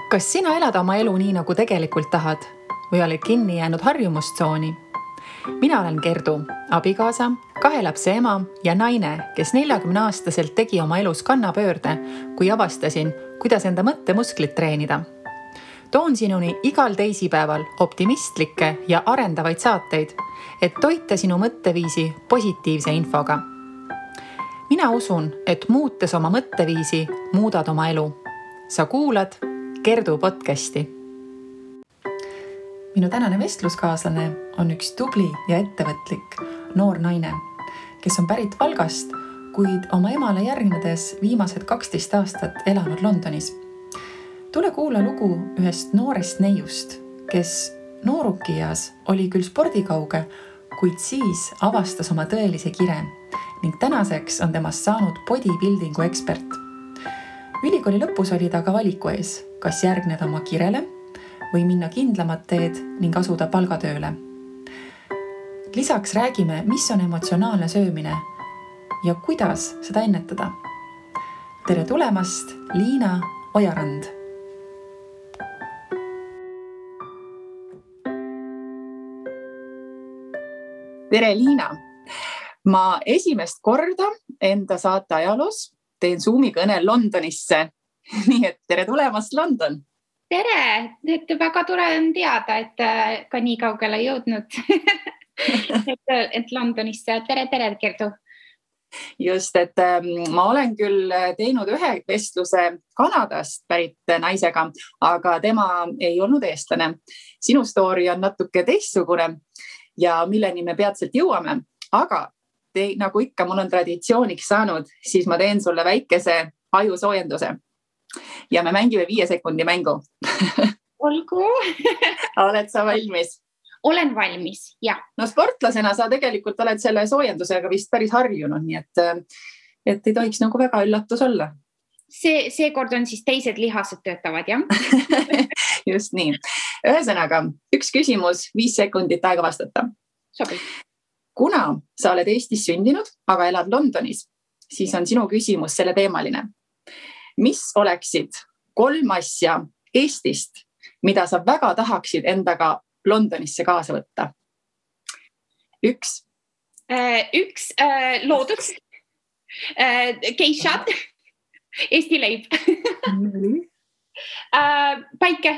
Kas sina elad oma elu nii, nagu tegelikult tahad või oled kinni jäänud harjumustsooni? Mina olen Gerdu, abikaasa, 2 lapse ema ja naine, kes 40-aastaselt tegi oma elus kannapöörde, kui avastasin, kuidas enda mõttemusklit treenida. Toon sinuni igal teisipäeval optimistlikke ja arendavaid saateid, et toita sinu mõtteviisi positiivse infoga. Mina usun, et muutes oma mõtteviisi, muudad oma elu. Sa kuulad Gerdu podcasti. Minu tänane vestluskaaslane on üks tubli ja ettevõtlik noor naine, kes on pärit Valgast, kuid oma emale järgnedes viimased 12 aastat elanud Londonis. Tule kuula lugu ühest noorest neiust, kes noorukias oli küll spordikauge, kuid siis avastas oma tõelise kire ning tänaseks on temast saanud bodybuildingu ekspert. Ülikooli lõpus oli ta ka valiku ees, kas järgneda oma kirele või minna kindlamat teed ning asuda palgatööle. Lisaks räägime, mis on emotsionaalne söömine ja kuidas seda ennetada. Tere tulemast, Liina Ojarand! Tere, Liina! Ma esimest korda enda saate ajaloos teen Zoomi kõne Londonisse. Nii et tere tulemast, London! Tere! Et väga tore on teada, et ka nii kaugele jõudnud. et Londonisse. Tere, Gerdu! Just, et ma olen küll teinud ühe vestluse Kanadast pärit naisega, aga tema ei olnud eestlane. Sinu story on natuke teistsugune ja milleni me peatselt jõuame, aga nagu ikka mul on traditsiooniks saanud, siis ma teen sulle väikese ajusoojenduse. Ja me mängime 5 sekundi mängu. Olgu. Oled sa valmis? Olen valmis, jah. No sportlasena sa tegelikult oled selle soojendusega vist päris harjunud, nii et ei tohiks nagu väga üllatus olla. Seekord on siis teised lihased töötavad, jah? Just nii. Ühesõnaga, 1 küsimus, 5 sekundit aega vastata. Sobi. Kuna sa oled Eestis sündinud, aga elad Londonis, siis on sinu küsimus selle teemaline. Mis oleksid 3 asja Eestist, mida sa väga tahaksid endaga Londonisse kaasa võtta? 1. 1 loodus, geishad, Eesti leib, päike.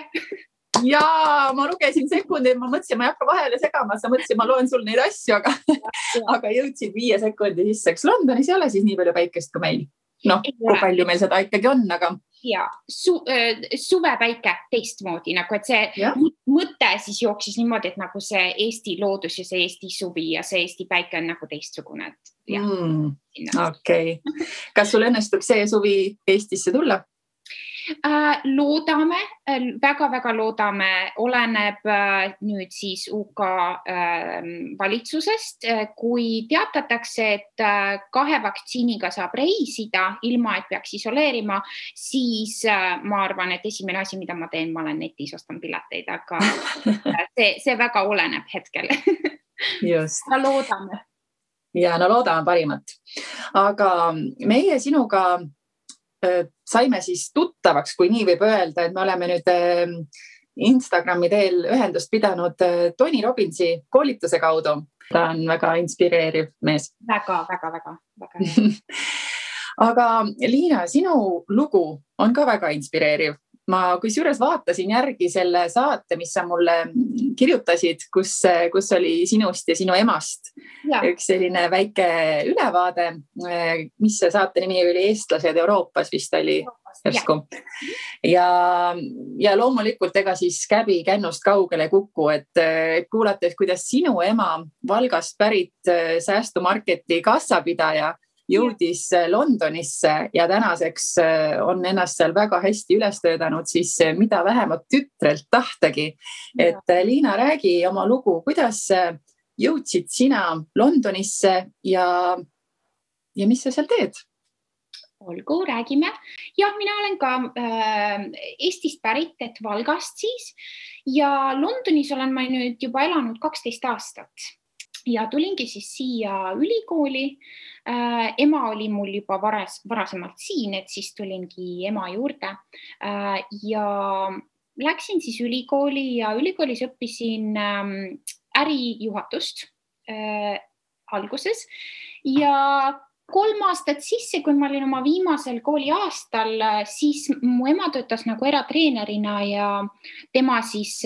Jaa, ma lugesin sekundi, ma mõtlesin, ma ei hakka vahele segama, sa mõtlesin, ma loen sul neid asju, aga jõudsid 5 sekundi sisse. Londonis ei ole siis nii palju päikest kui meil. Kui palju meil seda ikkagi on, aga... Ja, suvepäike teistmoodi, nagu et see mõte siis jooksis niimoodi, et nagu see Eesti loodus ja see Eesti suvi ja see Eesti päike on nagu teistsugune. Okei. Kas sul õnnestub see suvi Eestisse tulla? Loodame, väga-väga loodame, oleneb nüüd siis UK valitsusest, kui teatatakse, et 2 vaktsiiniga saab reisida, ilma et peaks isoleerima, siis ma arvan, et esimene asi, mida ma teen, ma olen netis, ostan pileteid, aga see väga oleneb hetkel. Just. Loodame. Ja, loodame parimat. Aga meie sinuga saime siis tuttavaks, kui nii võib öelda, et me oleme nüüd Instagrami teel ühendust pidanud Tony Robbinsi koolituse kaudu. Ta on väga inspireeriv mees. Väga. Aga Liina, sinu lugu on ka väga inspireeriv. Ma kusjuures vaatasin järgi selle saate, mis sa mulle kirjutasid, kus oli sinust ja sinu emast üks selline väike ülevaade, mis see saate nimi oli Eestlased Euroopas vist oli järsku. Ja loomulikult ega siis käbi kännust kaugele kuku, et kuulates, kuidas sinu ema Valgast pärit säästumarketi kassapidaja jõudis Londonisse ja tänaseks on ennast seal väga hästi üles töötanud, siis mida vähemalt tütrelt tahtagi. Et Liina, räägi oma lugu, kuidas jõudsid sina Londonisse ja mis sa seal teed? Olgu, räägime. Ja, mina olen ka Eestist pärit, et Valgast siis. Ja Londonis olen ma nüüd juba elanud 12 aastat. ja tulingi siis siia ülikooli. Ema oli mul juba varasemalt siin, et siis tulingi ema juurde ja läksin siis ülikooli ja ülikoolis õppisin ärijuhatust alguses ja 3 aastat sisse, kui ma olin oma viimasel kooliaastal, siis mu ema töötas nagu eratreenerina ja tema siis,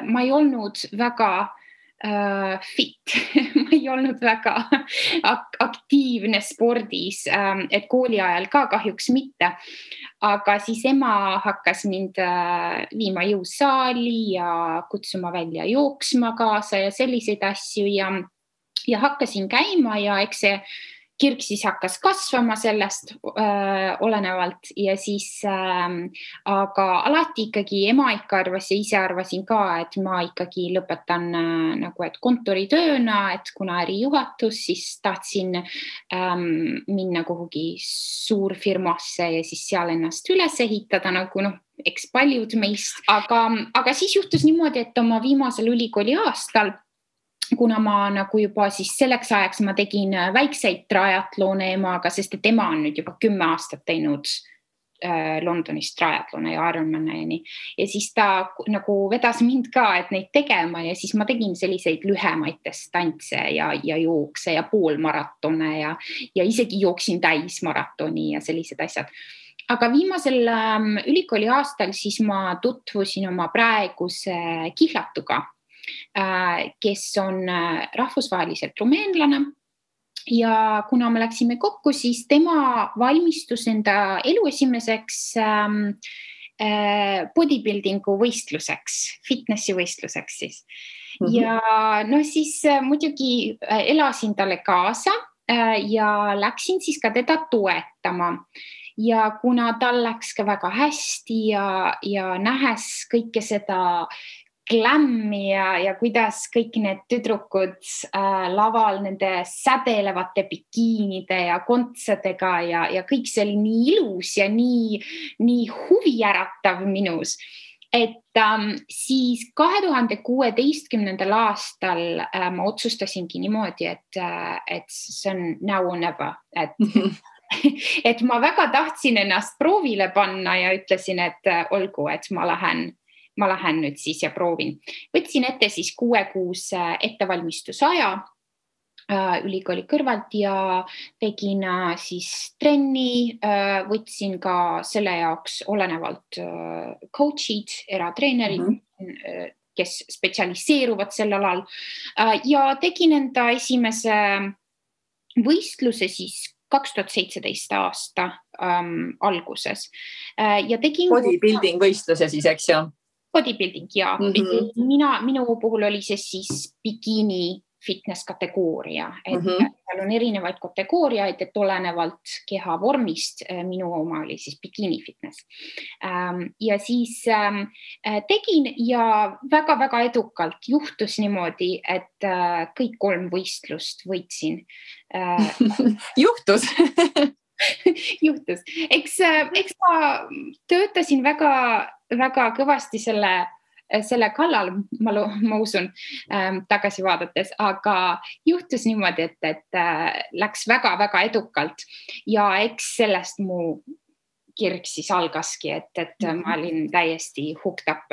ma ei olnud väga fit, ma ei olnud väga aktiivne spordis, et kooli ajal ka kahjuks mitte. Aga siis ema hakkas mind viima jõusaali ja kutsuma välja jooksma kaasa ja selliseid asju ja hakkasin käima ja eks see kirg siis hakkas kasvama sellest olenevalt ja siis, aga alati ikkagi ema ikka arvas ja ise arvasin ka, et ma ikkagi lõpetan nagu, et kontoritööna, et kuna ärijuhatus, siis tahtsin minna kuhugi suurfirmasse ja siis seal ennast üles ehitada nagu eks paljud meist, aga siis juhtus niimoodi, et oma viimasel ülikooli aastal, kuna ma nagu juba siis selleks ajaks ma tegin väikseid triatlone emaga, sest et ema on nüüd juba 10 aastat teinud Londonis triatlone ja Ironman'i ja siis ta nagu vedas mind ka, et neid tegema ja siis ma tegin selliseid lühemaid distantse ja jookse ja poolmaratone ja isegi jooksin täismaratoni ja sellised asjad. Aga viimasel ülikooli aastal siis ma tutvusin oma praeguse kihlatuga, kes on rahvusvaheliselt rumeenlane ja kuna me läksime kokku, siis tema valmistus enda elu esimeseks bodybuildingu võistluseks, fitnessi võistluseks siis. Ja siis muidugi elasin talle kaasa ja läksin siis ka teda toetama. Ja kuna tal läks ka väga hästi ja nähes kõike seda glammi ja kuidas kõik need tüdrukud laval nende sädelevate bikiinide ja kontsadega ja kõik see oli nii ilus ja nii huvijäratav minus, et siis 2016. aastal ma otsustasingi niimoodi, et see on now or never, et ma väga tahtsin ennast proovile panna ja ütlesin, et olgu, et ma lähen nüüd siis ja proovin. Võtsin ette siis 6-kuuse ettevalmistusaja ülikooli kõrvalt ja tegin siis trenni, võtsin ka selle jaoks olenevalt coach'id, eratreenerid, kes spetsialiseeruvad sel alal ja tegin enda esimese võistluse siis 2017 aasta alguses. Ja tegin bodybuilding võistluse siis, eks ju? Bodybuilding, jaa. Minu puhul oli see siis bikini fitness kategooria, et seal on erinevaid kategooriaid, et olenevalt keha vormist, minu oma oli siis bikini fitness. Ja siis tegin ja väga-väga edukalt juhtus niimoodi, et kõik 3 võistlust võitsin. Juhtus? Juhtus. Eks ma töötasin väga kõvasti selle kallal, ma usun, tagasi vaadates, aga juhtus niimoodi, et läks väga-väga edukalt ja eks sellest mu kirg siis algaski, et ma olin täiesti hooked up,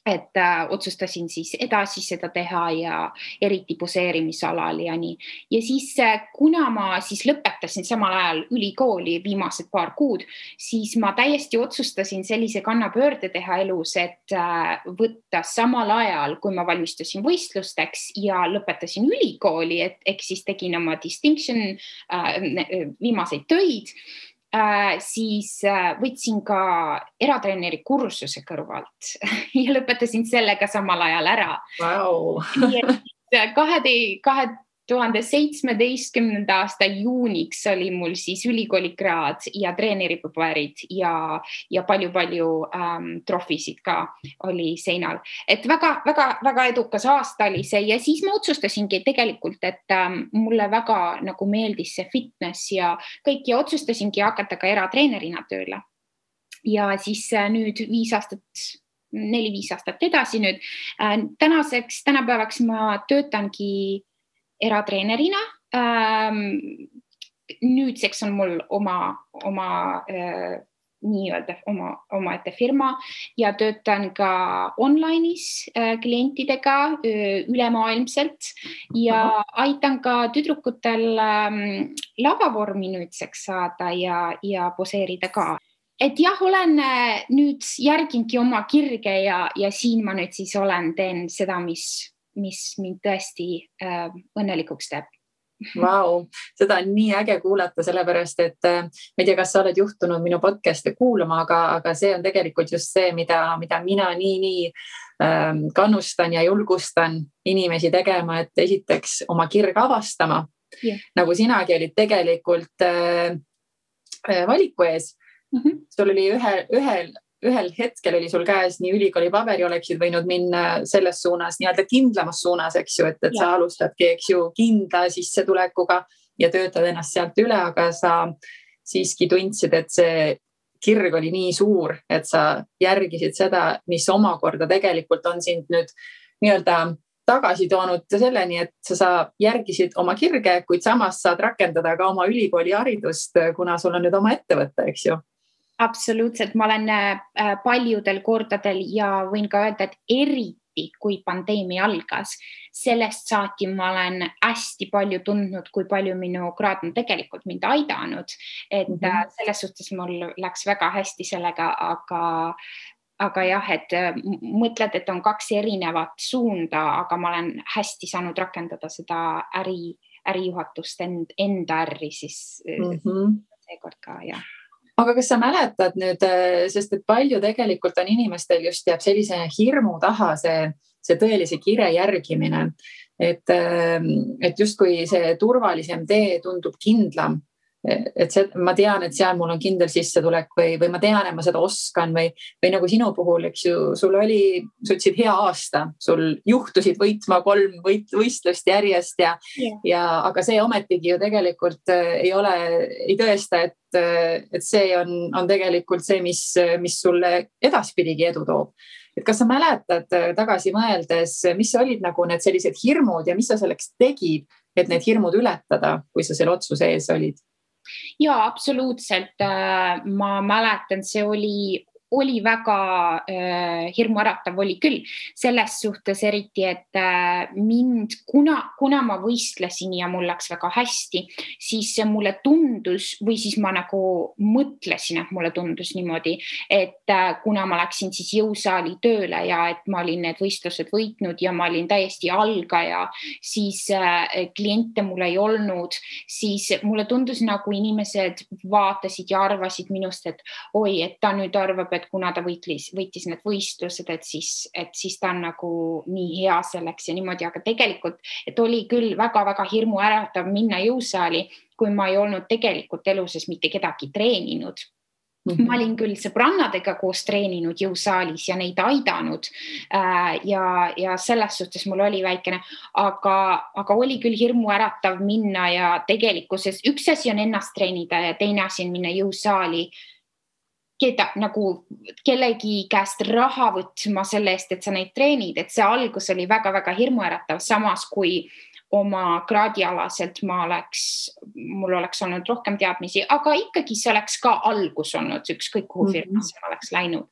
et otsustasin siis edasi seda teha ja eriti poseerimisalal ja nii. Ja siis, kuna ma siis lõpetasin samal ajal ülikooli viimased paar kuud, siis ma täiesti otsustasin sellise kannapöörde teha elus, et võtta samal ajal, kui ma valmistusin võistlusteks ja lõpetasin ülikooli, et siis tegin oma distinction viimaseid töid, siis võtsin ka eratreeneri kursuse kõrvalt ja lõpetasin sellega samal ajal ära. Wow. 2017. aasta juuniks oli mul siis ülikoolikraad ja treeneripaberid ja palju-palju trofisid ka oli seinal. Et väga edukas aasta oli see ja siis ma otsustasingi tegelikult, et mulle väga nagu meeldis see fitness ja kõik ja otsustasingi hakata ka eratreenerina tööle. Ja siis nüüd 5 aastat 4-5 aastat edasi nüüd. Tänapäevaks ma töötangi eratreenerina. Nüüdseks on mul oma nii-öelda omaette firma ja töötan ka online'is klientidega ülemaailmselt ja aitan ka tüdrukutel lavavormi nüüdseks saada ja poseerida ka. Et jah, olen nüüd järgingi oma kirge ja siin ma nüüd siis teen seda, mis mind tõesti õnnelikuks teeb. Vau, seda on nii äge kuulata, sellepärast, et ma ei tea, kas sa oled juhtunud minu podcast'e kuulama, aga see on tegelikult just see, mida mina nii kannustan ja julgustan inimesi tegema, et esiteks oma kirg avastama, nagu sinagi olid tegelikult valiku ees. Sul oli ühel hetkel oli sul käes nii ülikooli paberi, oleksid võinud minna selles suunas, nii-öelda kindlamas suunas, eks ju, et sa alustadki, eks ju, kindla sissetulekuga ja töötad ennast sealt üle, aga sa siiski tundsid, et see kirg oli nii suur, et sa järgisid seda, mis omakorda tegelikult on sind nüüd nii-öelda tagasi toonud selleni, et sa järgisid oma kirge, kuid samas saad rakendada ka oma ülikooli haridust, kuna sul on nüüd oma ettevõte, eks ju. Absoluutselt, ma olen paljudel kordadel ja võin ka öelda, et eriti kui pandeemia algas, sellest saati ma olen hästi palju tundnud, kui palju minu kraad on tegelikult mind aidanud, et selles suhtes mul läks väga hästi sellega, aga jah, et mõtled, et on 2 erinevat suunda, aga ma olen hästi saanud rakendada seda ärijuhatust enda ärri siis seekord ka, jah. Aga kas sa mäletad nüüd, sest et palju tegelikult on inimestel just jääb sellise hirmu taha see tõelise kire järgimine, et justkui see turvalisem tee tundub kindlam, et ma tean, et seal mul on kindel sissetulek või ma tean, et ma seda oskan või nagu sinu puhul, eks ju, sa ütlesid hea aasta, sul juhtusid võitma 3 võistlust järjest aga see ometigi ju tegelikult ei tõesta, et see on tegelikult see, mis sulle edaspidigi edu toob. Et kas sa mäletad tagasi mõeldes, mis olid nagu need sellised hirmud ja mis sa selleks tegid, et need hirmud ületada, kui sa selle otsuse ees olid? Ja, absoluutselt. Ma mäletan, see oli väga hirmuäratav oli küll. Selles suhtes eriti, et mind, kuna ma võistlesin ja mul läks väga hästi, siis mulle tundus või siis ma nagu mõtlesin, et mulle tundus niimoodi, et kuna ma läksin siis jõusaali tööle ja et ma olin need võistlused võitnud ja ma olin täiesti algaja, siis kliente mul ei olnud, siis mulle tundus nagu inimesed vaatasid ja arvasid minust, et oi, et ta nüüd arvab, et kuna ta võitis need võistlused, et siis ta on nagu nii hea selleks ja niimoodi, aga tegelikult, et oli küll väga-väga hirmuäratav minna jõusaali, kui ma ei olnud tegelikult eluses mitte kedagi treeninud. Ma olin küll sõbrannadega koos treeninud jõusaalis ja neid aidanud ja selles suhtes mul oli väikene, aga oli küll hirmuäratav minna ja tegelikkuses üks asi on ennast treenida ja teine asi on minna jõusaali nagu kellegi käest raha võtma selle eest, et sa neid treenid, et see algus oli väga-väga hirmuäratav, samas kui oma kraadialaselt mul oleks olnud rohkem teadmisi, aga ikkagi see oleks ka algus olnud, ükskõik kuhu firmasse oleks läinud.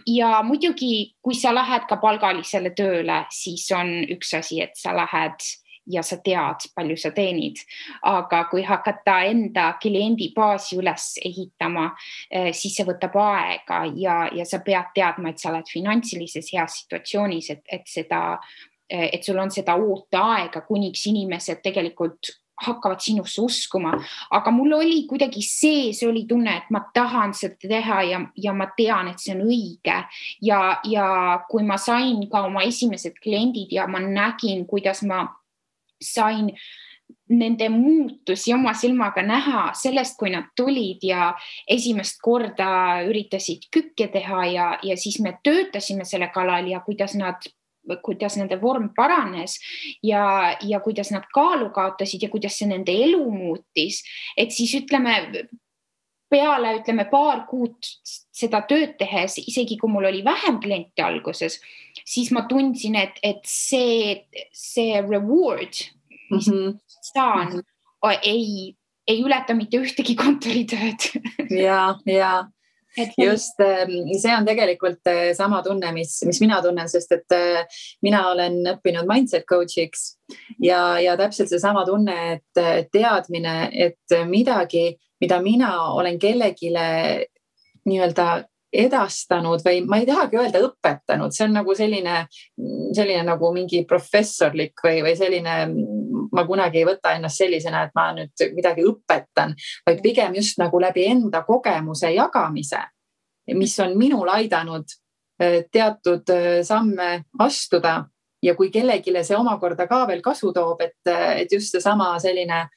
Ja muidugi, kui sa lähed ka palgalisele tööle, siis on üks asi, et sa lähed ja sa tead, palju sa teenid. Aga kui hakata enda kliendibaasi üles ehitama, siis see võtab aega ja sa pead teadma, et sa oled finantsilises heas situatsioonis, et sul on seda ooteaega, kuniks inimesed tegelikult hakkavad sinusse uskuma. Aga mul oli kuidagi sees oli tunne, et ma tahan seda teha ja ma tean, et see on õige. Ja kui ma sain ka oma esimesed kliendid ja ma nägin, kuidas ma sain nende muutusi oma silmaga näha sellest, kui nad tulid ja esimest korda üritasid kükke teha ja siis me töötasime selle kallal ja kuidas nende vorm paranes ja kuidas nad kaalu kaotasid ja kuidas see nende elu muutis, et siis ütleme, peale, ütleme, paar kuud seda tööd tehes, isegi kui mul oli vähem kliente alguses, siis ma tundsin, et see reward, mis saan, ei ületa mitte ühtegi kontoritööd. Ja. Just, see on tegelikult sama tunne, mis mina tunnen, sest et mina olen õppinud mindset coach'iks ja täpselt see sama tunne, et teadmine, et midagi, mida mina olen kellegile nii-öelda edastanud või ma ei tahagi öelda õpetanud, see on nagu selline nagu mingi professorlik või selline, ma kunagi ei võta ennast sellisena, et ma nüüd midagi õpetan, vaid pigem just nagu läbi enda kogemuse jagamise, mis on minul aidanud teatud samme astuda ja kui kellegile see omakorda ka veel kasu toob, et just see sama selline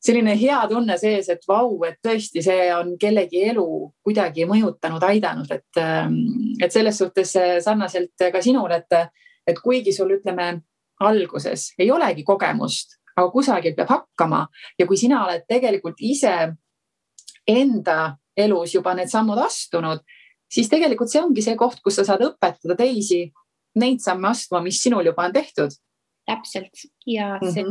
hea tunne sees, et vau, et tõesti see on kellegi elu kuidagi mõjutanud, aidanud, et selles suhtes sarnaselt ka sinul, et kuigi sul ütleme alguses ei olegi kogemust, aga kusagilt peab hakkama ja kui sina oled tegelikult ise enda elus juba need sammud astunud, siis tegelikult see ongi see koht, kus sa saad õpetada teisi neid samme astuma, mis sinul juba on tehtud. Täpselt ja see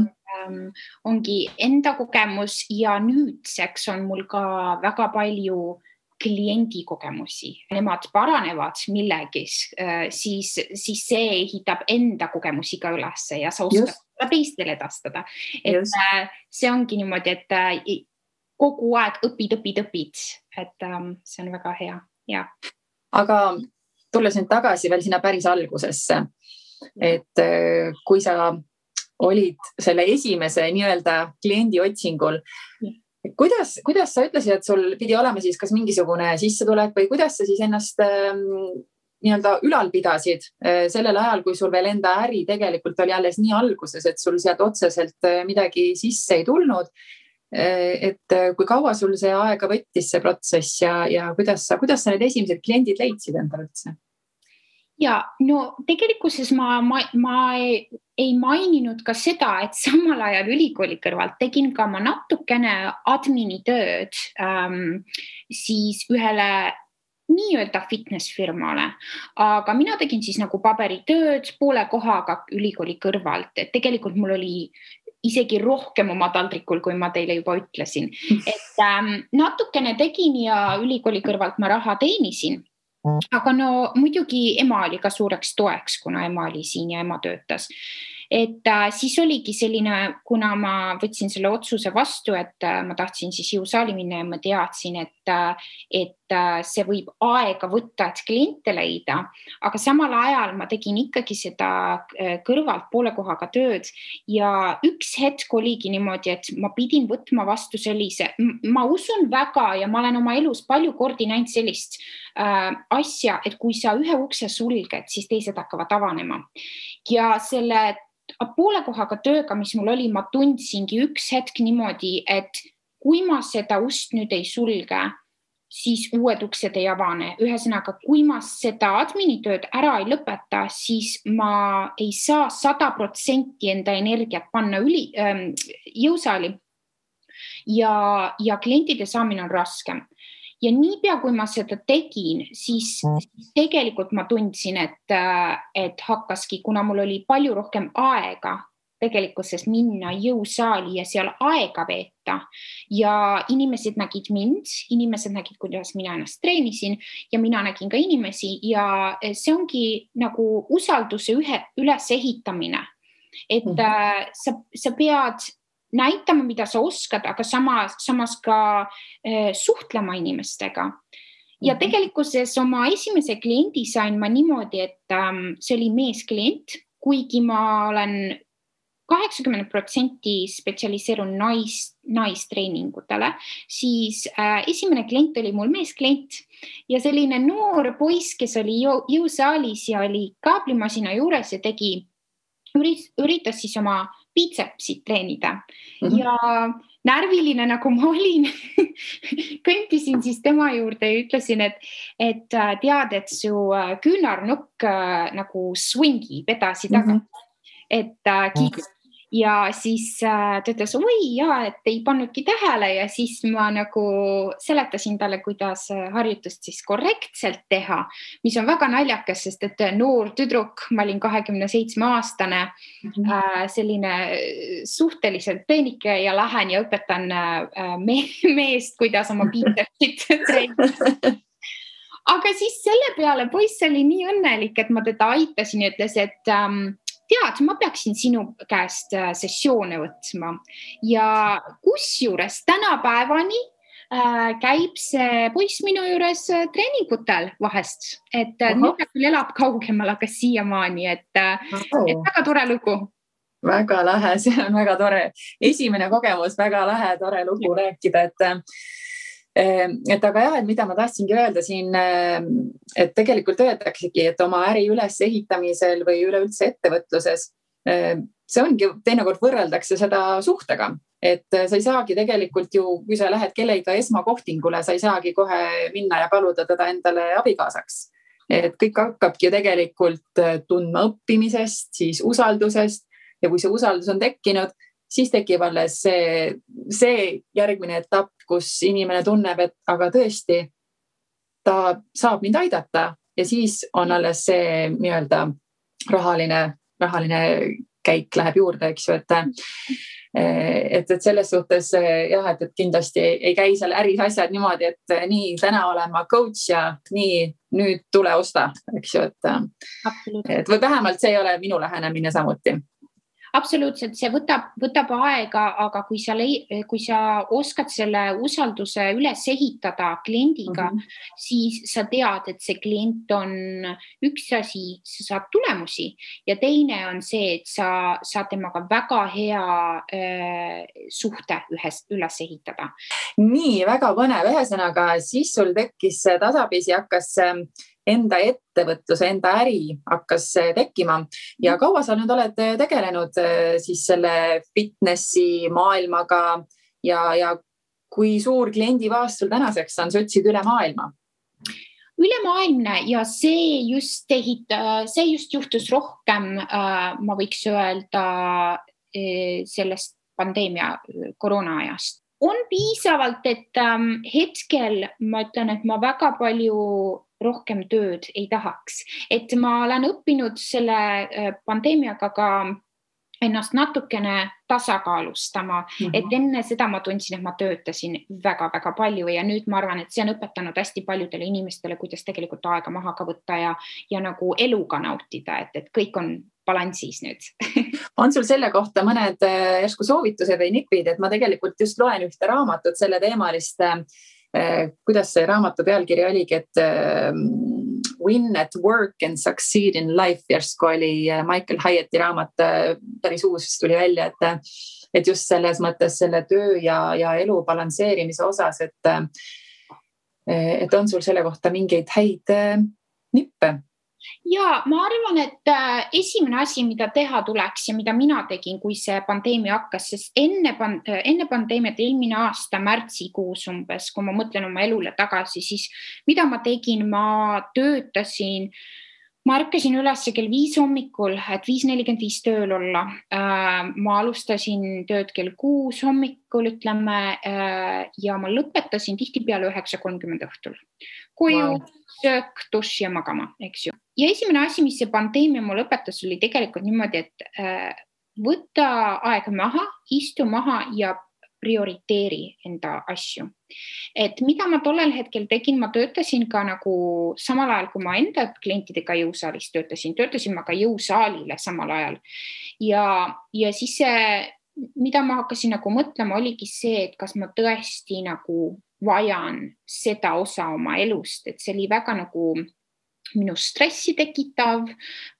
ongi enda kogemus ja nüüdseks on mul ka väga palju kliendi kogemusi. Nemad paranevad millegis, siis see ehitab enda kogemusi ka ülesse ja sa oskad seda teistele edastada. Et see ongi niimoodi, et kogu aeg õpid, et see on väga hea. Ja. Aga tulles nüüd tagasi veel sinna päris algusesse, et kui sa olid selle esimese nii-öelda kliendi otsingul, kuidas sa ütlesid, et sul pidi olema siis kas mingisugune sissetulek või kuidas sa siis ennast nii-öelda ülal pidasid sellel ajal, kui sul veel enda äri tegelikult oli alles nii alguses, et sul sealt otseselt midagi sisse ei tulnud, et kui kaua sul see aega võttis see protsess ja kuidas sa need esimesed kliendid leidsid endale üldse? Ja, no tegelikkuses ma ei maininud ka seda, et samal ajal ülikooli kõrvalt tegin ka ma natukene admini tööd siis ühele nii-öelda fitnessfirmale, aga mina tegin siis nagu paberitööd poole kohaga ülikooli kõrvalt, et tegelikult mul oli isegi rohkem oma taldrikul, kui ma teile juba ütlesin, et natukene tegin ja ülikooli kõrvalt ma raha teenisin. Aga no muidugi ema oli ka suureks toeks, kuna ema oli siin ja ema töötas. Et siis oligi selline, kuna ma võtsin selle otsuse vastu, et ma tahtsin siis jõusaali minna ja ma teadsin, et see võib aega võtta, et kliente leida, aga samal ajal ma tegin ikkagi seda kõrvalt poole kohaga tööd ja üks hetk oligi niimoodi, et ma pidin võtma vastu sellise, ma usun väga ja ma olen oma elus palju kordi näinud sellist asja, et kui sa ühe ukse sulged, siis teised hakkavad avanema. Ja selle poole kohaga tööga, mis mul oli, ma tundsingi üks hetk niimoodi, et kui ma seda ust nüüd ei sulge, siis uued uksed ei avane. Ühesõnaga, kui ma seda adminitööd ära ei lõpeta, siis ma ei saa 100% enda energiat panna jõusaali ja klientide saamine on raskem. Ja niipea, kui ma seda tegin, siis tegelikult ma tundsin, et hakkaski, kuna mul oli palju rohkem aega tegelikkuses minna jõusaali ja seal aega veeta ja inimesed nägid mind, inimesed nägid, kuidas mina ennast treenisin ja mina nägin ka inimesi ja see ongi nagu usalduse ülesehitamine, et sa pead näitama, mida sa oskad, aga samas ka suhtlema inimestega. Ja tegelikkuses oma esimese kliendi sain ma niimoodi, et see oli meesklient, kuigi ma olen 80% spetsialiseerun naistreeningutele, siis esimene klient oli mul meesklient ja selline noor poiss, kes oli jõusaalis ja oli kaablimasina juures ja üritas siis oma biitsepsit treenida ja närviline nagu ma olin, kõndisin siis tema juurde ja ütlesin, et tead, et su küünarnukk nagu swingib edasi tagasi, et ja siis ta ütles, oi jaa, et ei pannudki tähele ja siis ma nagu seletasin talle, kuidas harjutust siis korrektselt teha, mis on väga naljakas, sest et noor tüdruk, ma olin 27-aastane, selline suhteliselt peenike ja lähen ja õpetan meest, kuidas oma biitsepsit treenida. Aga siis selle peale poiss oli nii õnnelik, et ma teda aitasin ja ütles, et tead, ma peaksin sinu käest sessioone võtma ja kusjuures tänapäevani käib see poiss minu juures treeningutel vahest, et nüüd ta küll elab kaugemal, aga siiamaani, et väga tore lugu. Väga lähe, see on väga tore. Esimene kogemus, väga lähe, tore lugu rääkida, et aga jah, et mida ma tahtsingi öelda siin, et tegelikult öeldaksegi, et oma äri ülesehitamisel või üleüldse ettevõtluses, see ongi, teinekord võrreldakse seda suhtega, et sa ei saagi tegelikult ju, kui sa lähed kellega esmakohtingule, sa ei saagi kohe minna ja paluda teda endale abikaasaks. Et kõik hakkabki ju tegelikult tundma õppimisest, siis usaldusest ja kui see usaldus on tekkinud, siis tekib alles see järgmine etapp, kus inimene tunneb, et aga tõesti ta saab mind aidata ja siis on alles see nii-öelda rahaline käik läheb juurde, eks ju, et selles suhtes jah, et kindlasti ei käi seal äris asjad niimoodi, et nii täna olen ma coach ja nii nüüd tule osta, eks ju, et või vähemalt see ei ole minu lähenemine samuti. Absoluutselt, see võtab aega, aga kui sa oskad selle usalduse üles ehitada kliendiga, siis sa tead, et see klient on üks asi, sa saad tulemusi ja teine on see, et sa saad temaga väga hea suhte üles ehitada. Nii, väga põnev. Ühesõnaga, siis sul tekkis tasapisi, hakkas enda ettevõtluse, enda äri hakkas tekkima ja kaua sa nüüd oled tegelenud siis selle fitnessi maailmaga ja kui suur kliendibaas sul tänaseks on, sa ütlesid üle maailma? Ülemaailmne ja see just juhtus rohkem, ma võiks öelda sellest pandeemia koroona-ajast. On piisavalt, et hetkel ma ütlen, et ma väga palju rohkem tööd ei tahaks, et ma olen õppinud selle pandeemiaga ka ennast natukene tasakaalustama, et enne seda ma tundsin, et ma töötasin väga-väga palju ja nüüd ma arvan, et see on õpetanud hästi paljudele inimestele, kuidas tegelikult aega maha ka võtta ja nagu eluga nautida, et kõik on balansis nüüd. On sul selle kohta mõned järsku soovitused või nipid, et ma tegelikult just loen ühte raamatut selle teemalist, kuidas see raamatu pealkiri oligi, et Win at Work and Succeed in Life, järsku oli Michael Hyatti raamat, päris uus tuli välja, et just selles mõttes selle töö ja elu balansseerimise osas, et on sul selle kohta mingeid häid nippe? Ja ma arvan, et esimene asi, mida teha tuleks ja mida mina tegin, kui see pandeemia hakkas, sest enne pandeemiat eelmine aasta märtsikuus umbes, kui ma mõtlen oma elule tagasi, siis mida ma tegin, ma töötasin, ma ärkasin üles kell 5 hommikul, et 5:45 tööl olla. Ma alustasin tööd kell 6 hommikul, ütleme, ja ma lõpetasin tihtipeale 9:30 õhtul. Koju, söök, dušš ja magama, eks ju. Ja esimene asi, mis see pandeemia mul õpetas, oli tegelikult niimoodi, et võtta aeg maha, istu maha ja prioriteeri enda asju. Et mida ma tollel hetkel tegin, ma töötasin ka nagu samal ajal, kui ma enda klientidega jõusaalis töötasin ma ka jõusaalile samal ajal. Ja siis see, mida ma hakkasin nagu mõtlema, oligi see, et kas ma tõesti nagu vajan seda osa oma elust, et see oli väga nagu minu stressi tekitav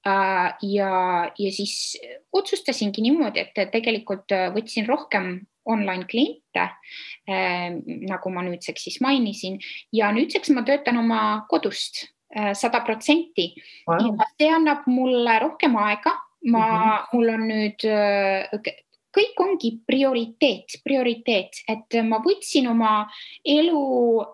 ja siis otsustasingi niimoodi, et tegelikult võtsin rohkem online kliente, nagu ma nüüdseks siis mainisin, ja nüüdseks ma töötan oma kodust 100%. Wow. Ja see annab mulle rohkem aega. Mul on nüüd, kõik ongi prioriteet, et ma võtsin oma elu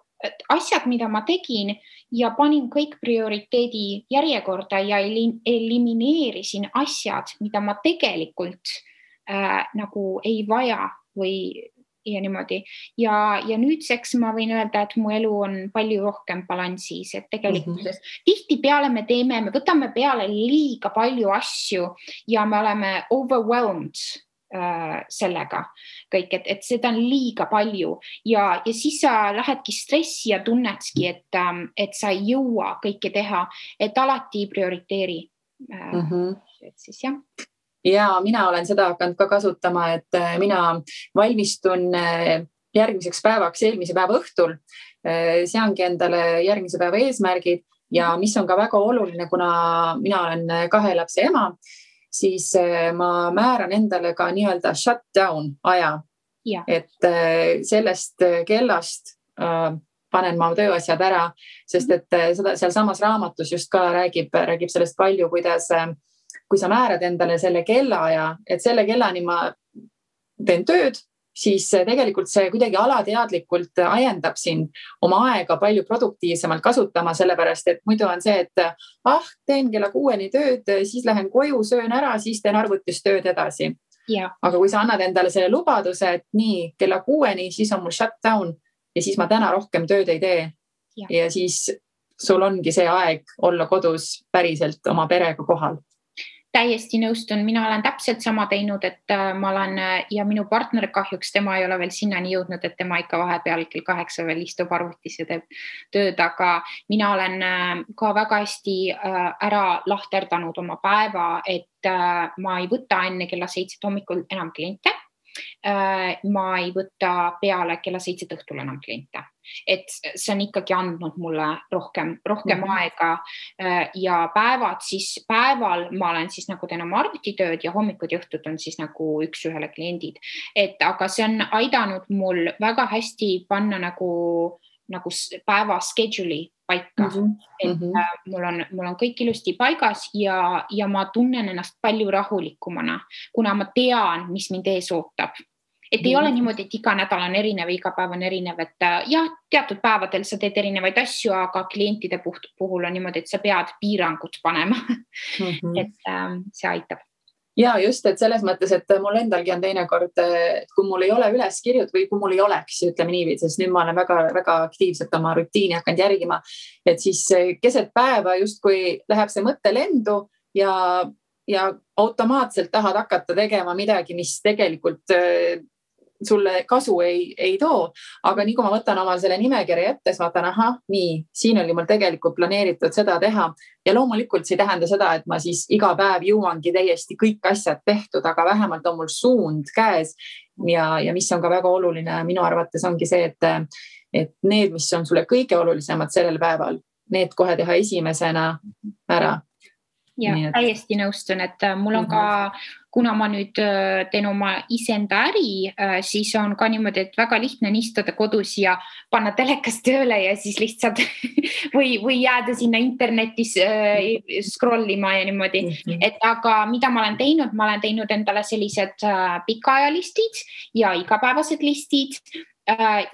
asjad, mida ma tegin ja panin kõik prioriteedi järjekorda ja elimineerisin asjad, mida ma tegelikult nagu ei vaja või ja niimoodi. Ja nüüdseks ma võin öelda, et mu elu on palju rohkem balansis, et tegelikult tihtipeale me võtame peale liiga palju asju ja me oleme overwhelmed sellega kõik, et seda on liiga palju ja siis sa lähedki stressi ja tunnedki, et sa ei jõua kõike teha, et alati prioriteeri. Et siis jah. Ja mina olen seda hakanud ka kasutama, et mina valmistun järgmiseks päevaks eelmise päeva õhtul, seangi endale järgmise päeva eesmärgid ja mis on ka väga oluline, kuna mina olen 2 lapse ema, siis ma määran endale ka nii-öelda shutdown aja, et sellest kellast panen ma tööasjad ära, sest et seda seal samas raamatus just ka räägib sellest palju, kuidas kui sa määrad endale selle kellaaja, et selle kellani ma teen tööd, siis tegelikult see kuidagi alateadlikult ajendab sind oma aega palju produktiivsemalt kasutama, sellepärast et muidu on see, et teen kella 6 tööd, siis lähen koju, söön ära, siis teen arvutis tööd edasi. Aga kui sa annad endale selle lubaduse, et nii kella 6, siis on mul shutdown ja siis ma täna rohkem tööd ei tee ja siis sul ongi see aeg olla kodus päriselt oma perega kohal. Täiesti nõustun, mina olen täpselt sama teinud, et ma olen ja minu partner kahjuks, tema ei ole veel sinnani jõudnud, et tema ikka vahepeal kell 8 veel istub arvutis ja teeb tööd, aga mina olen ka väga hästi ära lahterdanud oma päeva, et ma ei võta enne kella 7 hommikul enam kliente. Ma ei võta peale kella 7 õhtul enam kliente, et see on ikkagi andnud mulle rohkem aega ja päeval ma olen siis nagu teen oma arvutitööd ja hommikud ja õhtud on siis nagu 1-1 kliendid, et aga see on aidanud mul väga hästi panna nagu päeva schedule'i paika, et mul on kõik ilusti paigas ja ma tunnen ennast palju rahulikumana, kuna ma tean, mis mind ees ootab. Et ei ole niimoodi, et iga nädal on erinev, iga päev on erinev, et teatud päevadel sa teed erinevaid asju, aga klientide puhul on niimoodi, et sa pead piirangud panema, et see aitab. Ja just, et selles mõttes, et mul endalgi on teinekord, kui mul ei ole üleskirjud või kui mul ei oleks, ütleme niiviisi, sest nüüd ma olen väga aktiivselt oma rutiini hakanud järgima, et siis keset päeva justkui läheb see mõtte lendu ja automaatselt tahad hakata tegema midagi, mis tegelikult sulle kasu ei too, aga nii kui ma võtan omal selle nimekirja ette, siis vaatan, nii, siin oli mul tegelikult planeeritud seda teha ja loomulikult see ei tähenda seda, et ma siis iga päev jõuangi täiesti kõik asjad tehtud, aga vähemalt on mul suund käes ja mis on ka väga oluline minu arvates ongi see, et need, mis on sulle kõige olulisemad sellel päeval, need kohe teha esimesena ära. Ja täiesti nõustun, et mul on ka, kuna ma nüüd teen oma iseenda äri, siis on ka niimoodi, et väga lihtne on istuda kodus ja panna telekas tööle ja siis lihtsalt või jääda sinna internetis scrollima ja niimoodi. Et aga mida ma olen teinud endale sellised pikaajalistid ja igapäevased listid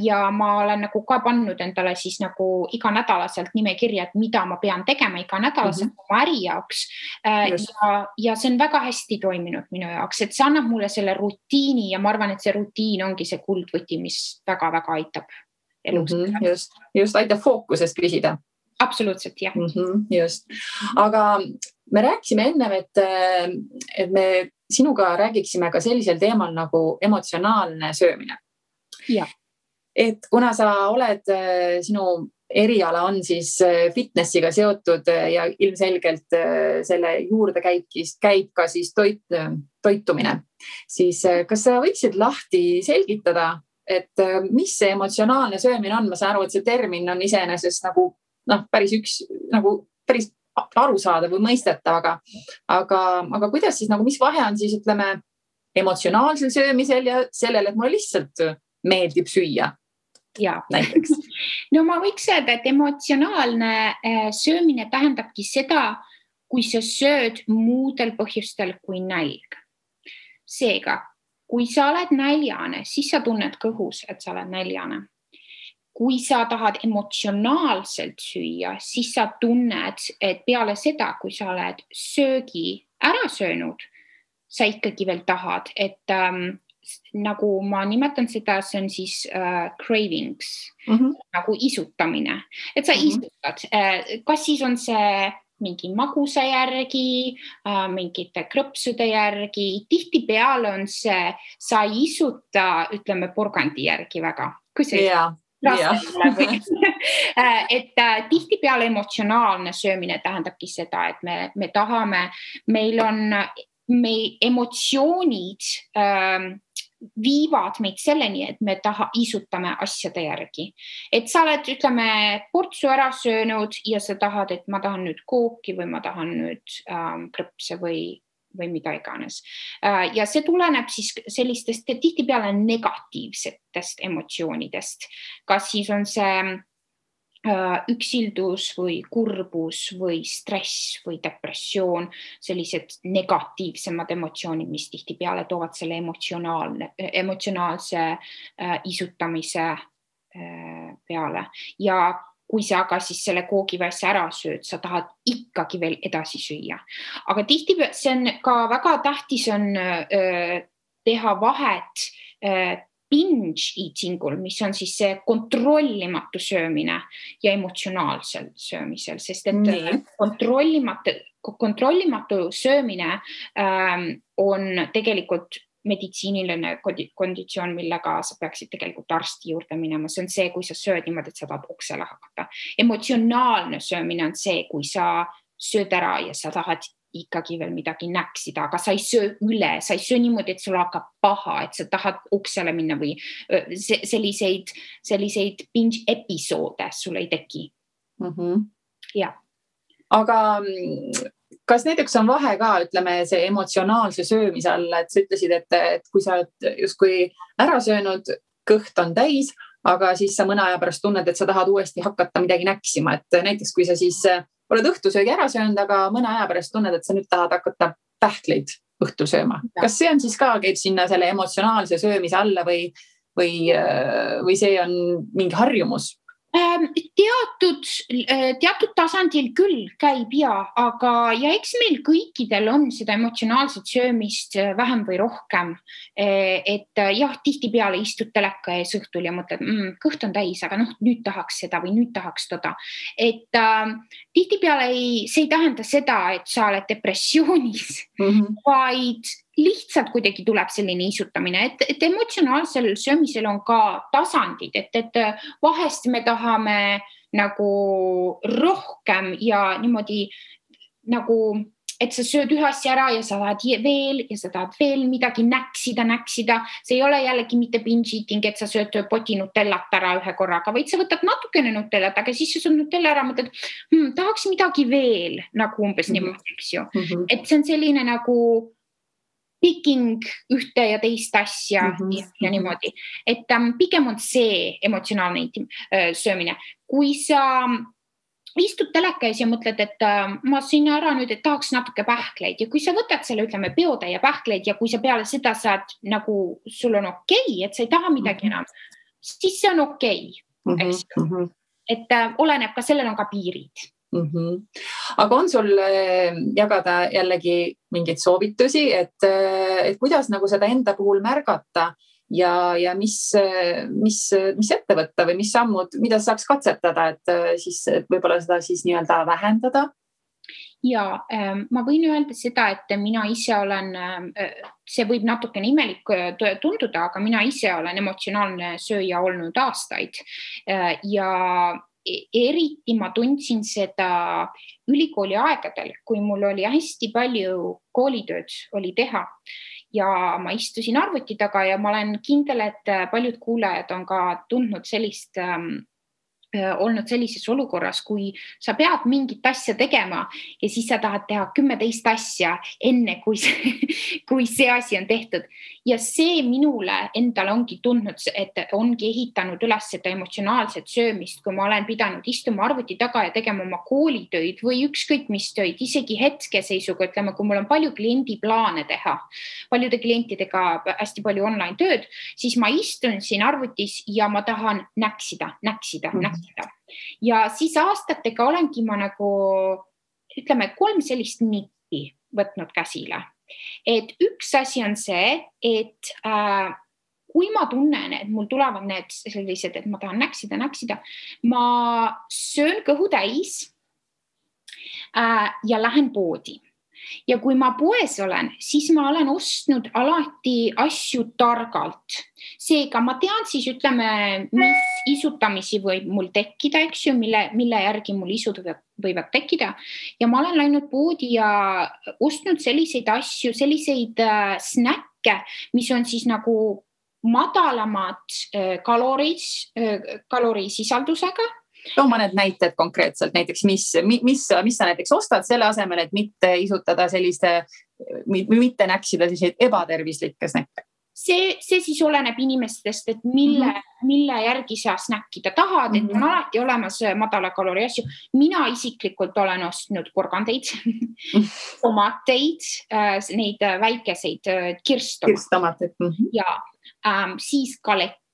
ja ma olen nagu ka pannud endale siis nagu iganädalaselt nimekirja, et mida ma pean tegema iganädalaselt oma äri jaoks ja see on väga hästi toiminud minu jaoks, et see annab mulle selle rutiini ja ma arvan, et see rutiin ongi see kuldvõti, mis väga-väga aitab elus. Just aitab fookusest püsida. Absoluutselt, jah. Just. Aga me rääkisime ennem, et me sinuga räägiksime ka sellisel teemal nagu emotsionaalne söömine. Et kuna sa oled, sinu eriala on siis fitnessiga seotud ja ilmselgelt selle juurde käib ka siis toitumine, siis kas sa võiksid lahti selgitada, et mis see emotsionaalne söömine on? Ma saan aru, et see termin on iseenesest nagu päris arusaadav või mõistetav, aga kuidas siis, mis vahe on siis, ütleme, emotsionaalsel söömisel ja sellel, et mulle lihtsalt meeldib süüa? Näiteks. No ma võiks öelda, et emotsionaalne söömine tähendabki seda, kui sa sööd muudel põhjustel kui nälg. Seega, kui sa oled näljane, siis sa tunned kõhus, et sa oled näljane. Kui sa tahad emotsionaalselt süüa, siis sa tunned, et peale seda, kui sa oled söögi ära söönud, sa ikkagi veel tahad, et nagu ma nimetan seda, see on siis cravings, nagu isutamine, et sa isutad, kas siis on see mingi magusa järgi, mingite krõpsude järgi, tihtipeale on see, sa ei isuta, ütleme, porgandi järgi väga, kui see et tihtipeale emotsionaalne söömine tähendabki seda, et me tahame, meil emotsioonid viivad meid selleni, et me isutame asjade järgi. Et sa oled, ütleme, portsu ära söönud ja sa tahad, et ma tahan nüüd kooki või ma tahan nüüd krõpse või mida iganes. Ja see tuleneb siis sellistest tihtipeale negatiivsetest emotsioonidest. Kas siis on see üksildus või kurbus või stress või depressioon, sellised negatiivsemad emotsioonid, mis tihtipeale toovad selle emotsionaalse isutamise peale. Ja kui sa aga siis selle koogiväesse ära sööd, sa tahad ikkagi veel edasi süüa. Aga tihtipeale see on ka väga tähtis on teha vahet binge eatingul, mis on siis see kontrollimatu söömine ja emotsionaalsel söömisel, sest et kontrollimatu söömine on tegelikult meditsiiniline konditsioon, millega sa peaksid tegelikult arsti juurde minema. See on see, kui sa sööd niimoodi, et sa tahad oksele hakata. Emotsionaalne söömine on see, kui sa sööd ära ja sa tahad ikkagi veel midagi näksida, aga sa ei söö üle, sa ei söö niimoodi, et sul hakkab paha, et sa tahad oksele minna või selliseid binge episoode sul ei teki. Ja. Aga kas näiteks on vahe ka, ütleme, see emotsionaalse söömise all, et sa ütlesid, et kui sa oled justkui ära söönud, kõht on täis, aga siis sa mõne aja pärast tunned, et sa tahad uuesti hakata midagi näksima, et näiteks kui sa siis oled õhtusöögi ära söönud, aga mõne aja pärast tunned, et sa nüüd tahad hakata pähkleid õhtul sööma. Kas see on siis ka, käib sinna selle emotsionaalse söömise alla või see on mingi harjumus? Teatud tasandil küll käib aga eks meil kõikidel on seda emotsionaalset söömist vähem või rohkem. Et jah, tihtipeale istud teleka ees õhtul ja mõtled, kõht on täis, aga nüüd tahaks seda või nüüd tahaks toda. Et tihtipeale see ei tähenda seda, et sa oled depressioonis, vaid lihtsalt kuidagi tuleb selline isutamine, et emotsionaalsel söömisel on ka tasandid, et vahest me tahame nagu rohkem ja niimoodi nagu, et sa sööd ühe asja ära ja sa tahad veel ja sa tahad veel midagi näksida. See ei ole jällegi mitte binge eating, et sa sööd poti nutellat ära ühe korraga, vaid sa võtad natukene nutellat, aga siis sa sööd nutella ära, mõtled, tahaks midagi veel, nagu umbes niimoodi, eks ju. Et see on selline nagu picking ühte ja teist asja ja niimoodi. Et pigem on see emotsionaalne söömine. Kui sa istud teleka ees ja mõtled, et ma siin ära nüüd, et tahaks natuke pähkleid ja kui sa võtad selle, ütleme, peotäie pähkleid ja kui sa peale seda saad nagu, sul on okei, et sa ei taha midagi enam, siis see on okei. Et oleneb ka, sellel on ka piirid. Aga on sul jagada jällegi mingeid soovitusi, et kuidas nagu seda enda puhul märgata ja mis ette võtta või mis sammud, mida saaks katsetada, et siis võib-olla seda siis nii-öelda vähendada? Ja ma võin öelda seda, et mina ise olen, see võib natukene imelik tunduda, aga mina ise olen emotsionaalne sööja olnud aastaid ja eriti ma tundsin seda ülikooli aegadel, kui mul oli hästi palju koolitööd oli teha ja ma istusin arvuti taga ja ma olen kindel, et paljud kuulajad on ka tundnud olnud sellises olukorras, kui sa pead mingit asja tegema ja siis sa tahad teha 10 asja enne, kui see asi on tehtud. Ja see minule endale ongi tundnud, et ongi ehitanud üles seda emotsionaalset söömist, kui ma olen pidanud istuma arvuti taga ja tegema oma koolitöid või ükskõik mis töid, isegi hetkeseisuga, ütleme, kui mul on palju kliendiplaane teha, paljude klientidega hästi palju online tööd, siis ma istun siin arvutis ja ma tahan näksida. Ja siis aastatega olengi ma nagu, ütleme, 3 sellist nippi võtnud käsile. et üks asi on see, et kui ma tunnen, et mul tulevad need sellised, et ma tahan näksida, ma söön kõhu täis ja lähen poodi. Ja kui ma poes olen, siis ma olen ostnud alati asju targalt. Seega ma tean siis, ütleme, mis isutamisi võib mul tekkida, eks ju, mille järgi mul isud võivad tekkida. Ja ma olen läinud poodi ja ostnud selliseid asju, selliseid snäkke, mis on siis nagu madalamad kalorisisaldusega. Too mõned näited konkreetselt, näiteks mis sa näiteks ostad selle asemel, et mitte isutada mitte näksida selliseid ebatervislikke snäkke? See siis oleneb inimestest, et mille järgi sa snäkkida tahad, et on alati olemas madala kalori asju. Mina isiklikult olen ostnud porgandeid, tomateid, neid väikeseid kirstomateid ja siis galette.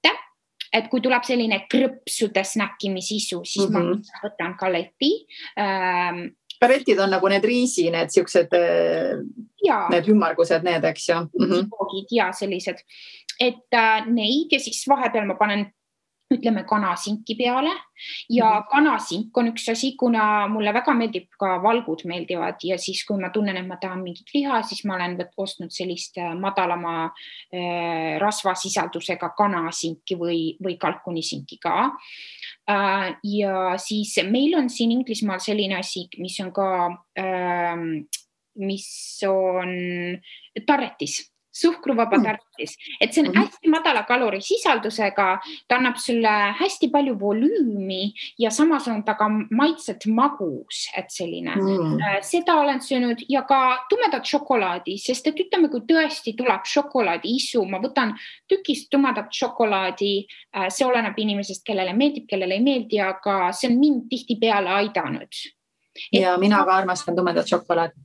Et kui tuleb selline krõpsude snäkkimisisu, siis ma võtan galeti. Galetid on nagu need riisi, need siuksed, need ümmargused, need, eks ju. Ja sellised. Et neid ja siis vahepeal ma panen, ütleme, kanasinki peale ja kanasink on üks asi, kuna mulle väga meeldib ka valgud meeldivad ja siis, kui ma tunnen, et ma tahan mingit liha, siis ma olen ostnud sellist madalama rasvasisaldusega kanasinki või kalkunisinki ka. Ja siis meil on siin Inglismaal selline asi, mis on ka, mis on tarretis. Suhkruvaba tarretis. Et see on hästi madala kalorisisaldusega, ta annab sulle hästi palju volüümi ja samas on ta ka maitset magus, et selline. Seda olen söönud ja ka tumedat šokolaadi, sest et ütleme, kui tõesti tuleb šokolaadi isu, ma võtan tükist tumedat šokolaadi, see oleneb inimesest, kellele meeldib, kellele ei meeldi, aga see on mind tihti peale aidanud. Ja mina ka armastan tumedat šokolaadi.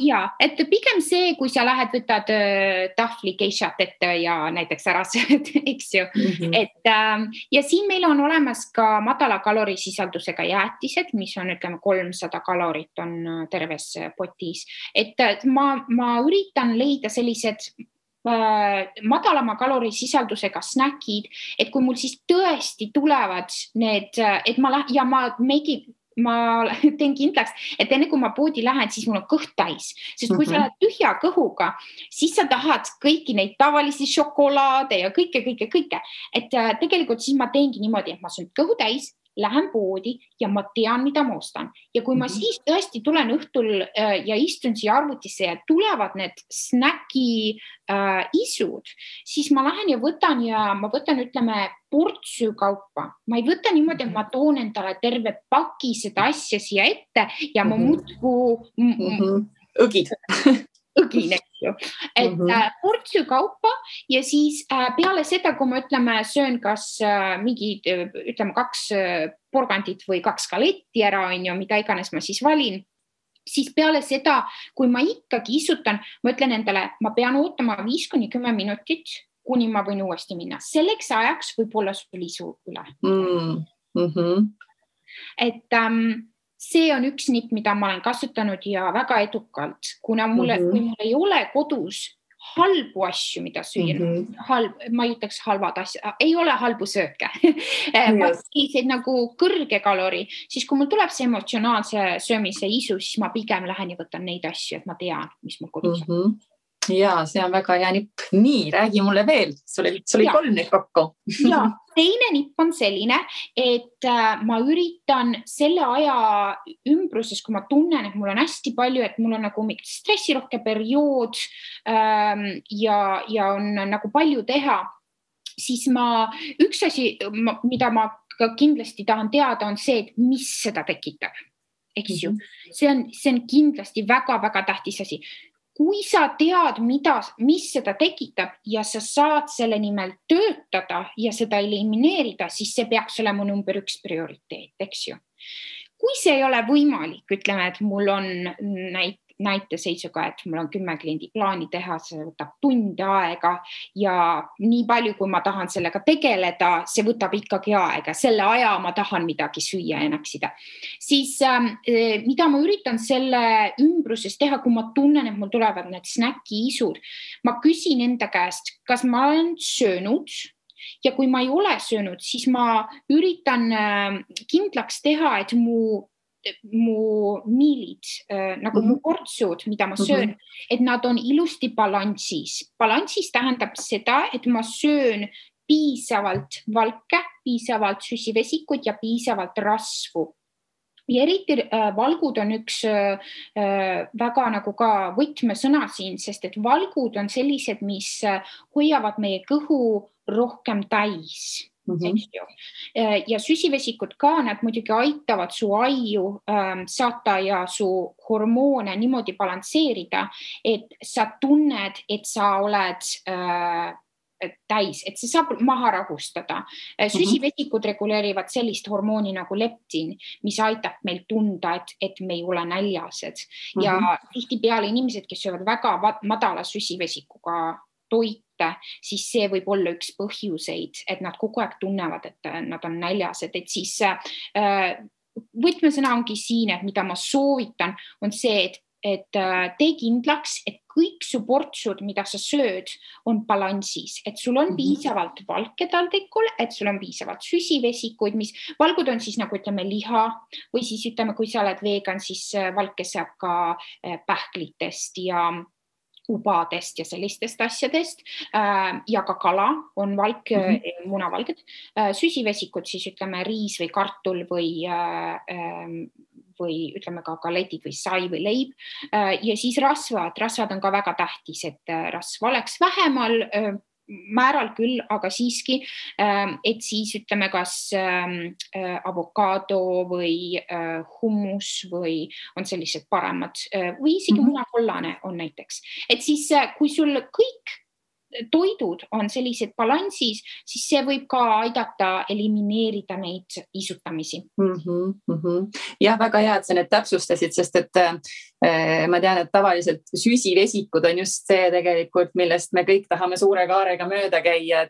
Ja, et pigem see, kui sa lähed, võtad tahvli geishat ette ja näiteks ära sööd, eks ju. Et, ja siin meil on olemas ka madala kalorisisaldusega jäätised, mis on, ütleme, 300 kalorit on terves potis. Et ma üritan leida sellised madalama kalorisisaldusega snäkid, et kui mul siis tõesti tulevad need, et ma teen kindlaks, et enne kui ma poodi lähen, siis mul on kõht täis. Sest kui sa lähed tühja kõhuga, siis sa tahad kõiki neid tavalisi šokolaade ja kõike. Et tegelikult siis ma teengi niimoodi, et ma söön kõhu täis, lähen poodi ja ma tean, mida ma ostan. Ja kui ma siis tõesti tulen õhtul ja istun siia arvutisse ja tulevad need snäki isud, siis ma lähen ja ma võtan, ütleme, portsju kaupa. Ma ei võta niimoodi, et ma toon endale terve paki seda asja siia ette ja ma muudku õgin, eks ju. Et portsju kaupa ja siis peale seda, kui ma söön kas mingi, ütleme, 2 porgandit või 2 galetti ära, mida iganes ma siis valin, siis peale seda, kui ma ikkagi isutan, ma ütlen endale, ma pean ootama 5-10 minutit, kuni ma võin uuesti minna. Selleks ajaks võib olla sul isu üle. Et see on üks nipp, mida ma olen kasutanud ja väga edukalt, kuna kui mul ei ole kodus halbu asju, mida süüa, ma ei ütleks halvad asja, ei ole halbu sööke, selliseid nagu kõrge kalori, siis kui mul tuleb see emotsionaalse söömise isu, siis ma pigem lähen ja võtan neid asju, et ma tean, mis mul kodus on. Ja, see on väga hea nipp. Nii, räägi mulle veel. Sul oli 3 neid kokku. Ja, teine nipp on selline, et ma üritan selle aja ümbruses, kui ma tunnen, et mul on hästi palju, et mul on nagu stressirohke periood ja on nagu palju teha, siis üks asi, mida ma kindlasti tahan teada, on see, et mis seda tekitab. Eks ju? See on kindlasti väga-väga tähtis asi. Kui sa tead, mis seda tekitab ja sa saad selle nimel töötada ja seda elimineerida, siis see peaks olema number 1 prioriteet, eks ju. Kui see ei ole võimalik, ütleme, et mul on näiteseisuga, et mul on 10 kliendi plaani teha, see võtab tunde aega ja nii palju, kui ma tahan sellega tegeleda, see võtab ikkagi aega. Selle aja ma tahan midagi süüa ja näksida. Siis mida ma üritan selle ümbruses teha, kui ma tunnen, et mul tulevad need snäki-isud, ma küsin enda käest, kas ma olen söönud ja kui ma ei ole söönud, siis ma üritan kindlaks teha, et mu miilid, nagu mu portsud, mida ma söön, et nad on ilusti balansis. Balansis tähendab seda, et ma söön piisavalt valke, piisavalt süsivesikut ja piisavalt rasvu. Ja eriti valgud on üks väga nagu ka võtmesõna siin, sest et valgud on sellised, mis hoiavad meie kõhu rohkem täis. Ja süsivesikud ka, nad muidugi aitavad su aiu saata ja su hormoone niimoodi balansseerida, et sa tunned, et sa oled täis, et see saab maha rahustada. Süsivesikud reguleerivad sellist hormooni nagu leptin, mis aitab meil tunda, et me ei ole näljased. Ja tihtipeale inimesed, kes söövad väga madala süsivesikuga toite, siis see võib olla üks põhjuseid, et nad kogu aeg tunnevad, et nad on näljased. Et siis võtmesõna ongi siin, et mida ma soovitan, on see, et tee kindlaks, et kõik su portsud, mida sa sööd, on balansis, et sul on piisavalt valke taldrikul, et sul on piisavalt süsivesikuid, mis valgud on siis nagu ütleme liha või siis ütleme, kui sa oled vegan, siis valke saab ka pähklitest ja ubadest ja sellistest asjadest ja ka kala on valk, munavalged, süsivesikud siis ütleme riis või kartul või ütleme ka galetid või sai või leib ja siis rasvad on ka väga tähtis, et rasva oleks vähemal määral küll, aga siiski, et siis ütleme kas avokaado või hummus või on sellised paremad või isegi munakollane on näiteks. Et siis kui sul kõik toidud on sellised balansis, siis see võib ka aidata elimineerida neid isutamisi. Jah, väga hea, et sa need täpsustasid, sest et ma tean, et tavaliselt süsivesikud on just see tegelikult, millest me kõik tahame suure kaarega mööda käia,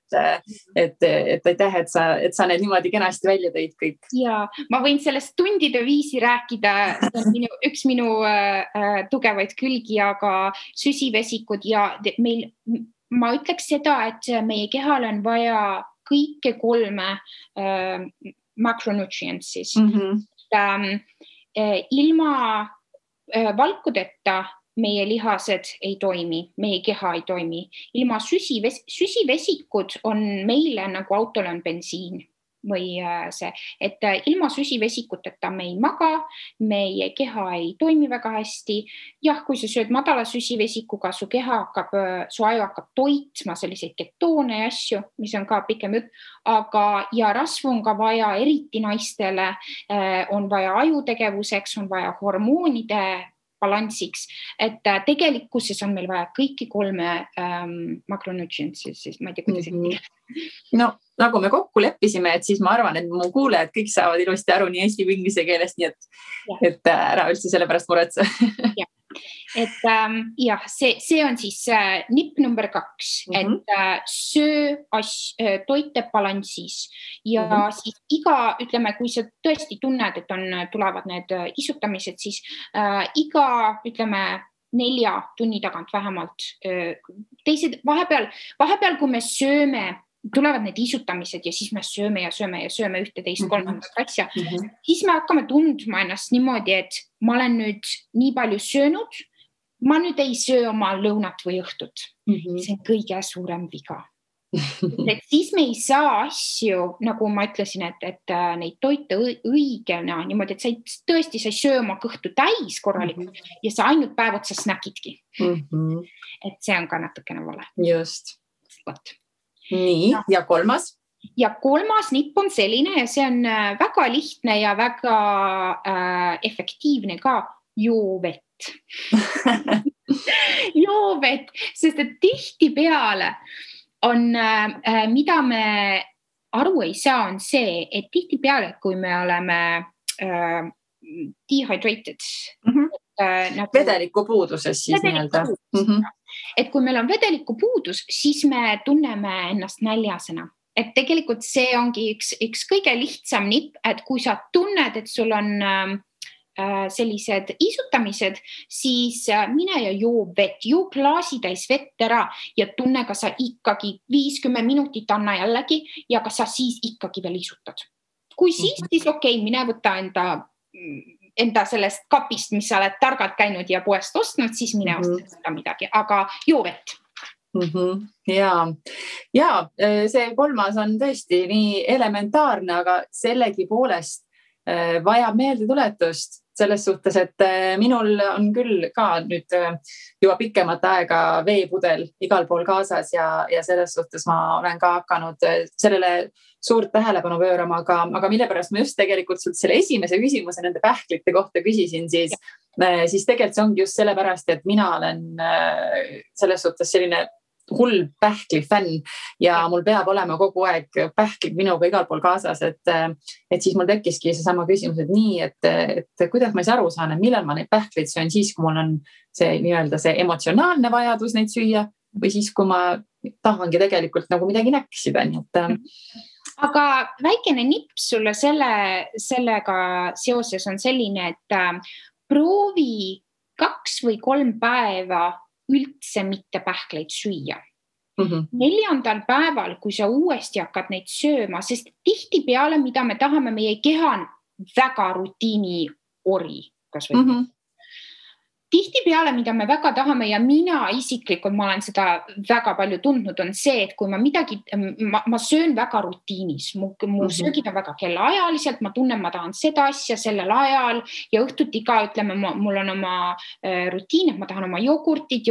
et aitäh, et sa need niimoodi kenasti välja tõid kõik. Ja ma võin sellest tundide viisi rääkida, see on üks minu tugevaid külgi, aga süsivesikud ja meil ma ütleks seda, et meie kehal on vaja kõike 3 macronutrients siis. Ilma valkudeta meie lihased ei toimi, meie keha ei toimi. Ilma süsivesikud on meile nagu autol on bensiin või see, et ilma süsivesikuteta me ei maga, meie keha ei toimi väga hästi. Jah, kui sa sööd madala süsivesikuga, su aju hakkab toitma selliseid ketoone ja asju, mis on ka pikem jutt, aga ja rasvu on ka vaja, eriti naistele on vaja ajutegevuseks, on vaja hormoonide balansiks, et tegelikkuses on meil vaja kõiki 3 macronutrients, siis ma ei tea, kuidas No, nagu me kokku leppisime, et siis ma arvan, et mu kuulejad kõik saavad ilusti aru nii eesti kui inglise keelest, nii et ära üldse selle pärast muretse. Et jah, see on siis nipp number 2, et söö toite balansis ja siis ütleme, kui sa tõesti tunned, et tulevad need isutamised, siis iga, ütleme, 4 tunni tagant vähemalt. Teised, vahepeal, kui me sööme, tulevad need isutamised ja siis me sööme ja sööme 1, 2, 3 asja, siis me hakkame tundma ennast niimoodi, et ma olen nüüd nii palju söönud, ma nüüd ei söö oma lõunat või õhtut. See on kõige suurem viga. Et siis me ei saa asju, nagu ma ütlesin, et neid toite õigena niimoodi, et sa tõesti sa ei söö oma kõhtu täis korralikult ja sa ainult päev otsa snäkidki. Et see on ka natukene vale. Just. Nii, ja 3? Ja 3. nipp on selline ja see on väga lihtne ja väga efektiivne ka, joo vett. Joo vett, sest et tihtipeale on, mida me aru ei saa, on see, et tihtipeale, kui me oleme dehydrated, vedeliku puuduses siis nii-öelda. Et kui meil on vedeliku puudus, siis me tunneme ennast näljasena. Et tegelikult see ongi üks kõige lihtsam nipp, et kui sa tunned, et sul on sellised isutamised, siis mine ja joo vett, joo klaasitäis vett ära ja tunne, kas sa ikkagi 50 minutit anna jällegi ja kas sa siis ikkagi veel isutad. Kui siis okei, mine võta enda sellest kapist, mis sa oled targalt käinud ja poest ostnud, siis mine osta seda midagi, aga joo vett. Ja see kolmas on tõesti nii elementaarne, aga sellegi poolest vajab meeldetuletust selles suhtes, et minul on küll ka nüüd juba pikemat aega veepudel igal pool kaasas ja selles suhtes ma olen ka hakanud sellele suurt tähelepanu pöörama, aga mille pärast ma just tegelikult sult selle esimese küsimuse nende pähklite kohta küsisin, siis tegelikult see ongi just sellepärast, et mina olen selles suhtes selline hull pähkli fänn ja mul peab olema kogu aeg pähklid minuga igal pool kaasas, et siis mul tekkiski see sama küsimus, et nii, et kuidas ma aru saan, et millal ma neid pähkleid söön siis, kui mul on see nii-öelda see emotsionaalne vajadus neid süüa või siis, kui ma tahangi tegelikult nagu midagi näksida, nii et aga väikene nipp sulle sellega seoses on selline, et proovi 2 või 3 päeva üldse mitte pähkleid süüa. 4. päeval, kui sa uuesti hakkad neid sööma, sest tihtipeale, mida me tahame, meie keha on väga rutiini ori, kas või tihtipeale, mida me väga tahame ja mina isiklikult, ma olen seda väga palju tundnud, on see, et kui ma söön väga rutiinis, mu söögid on väga kellaajaliselt, ma tunnen, ma tahan seda asja sellel ajal ja õhtuti ka, ütleme, mul on oma rutiin, et ma tahan oma jogurtit.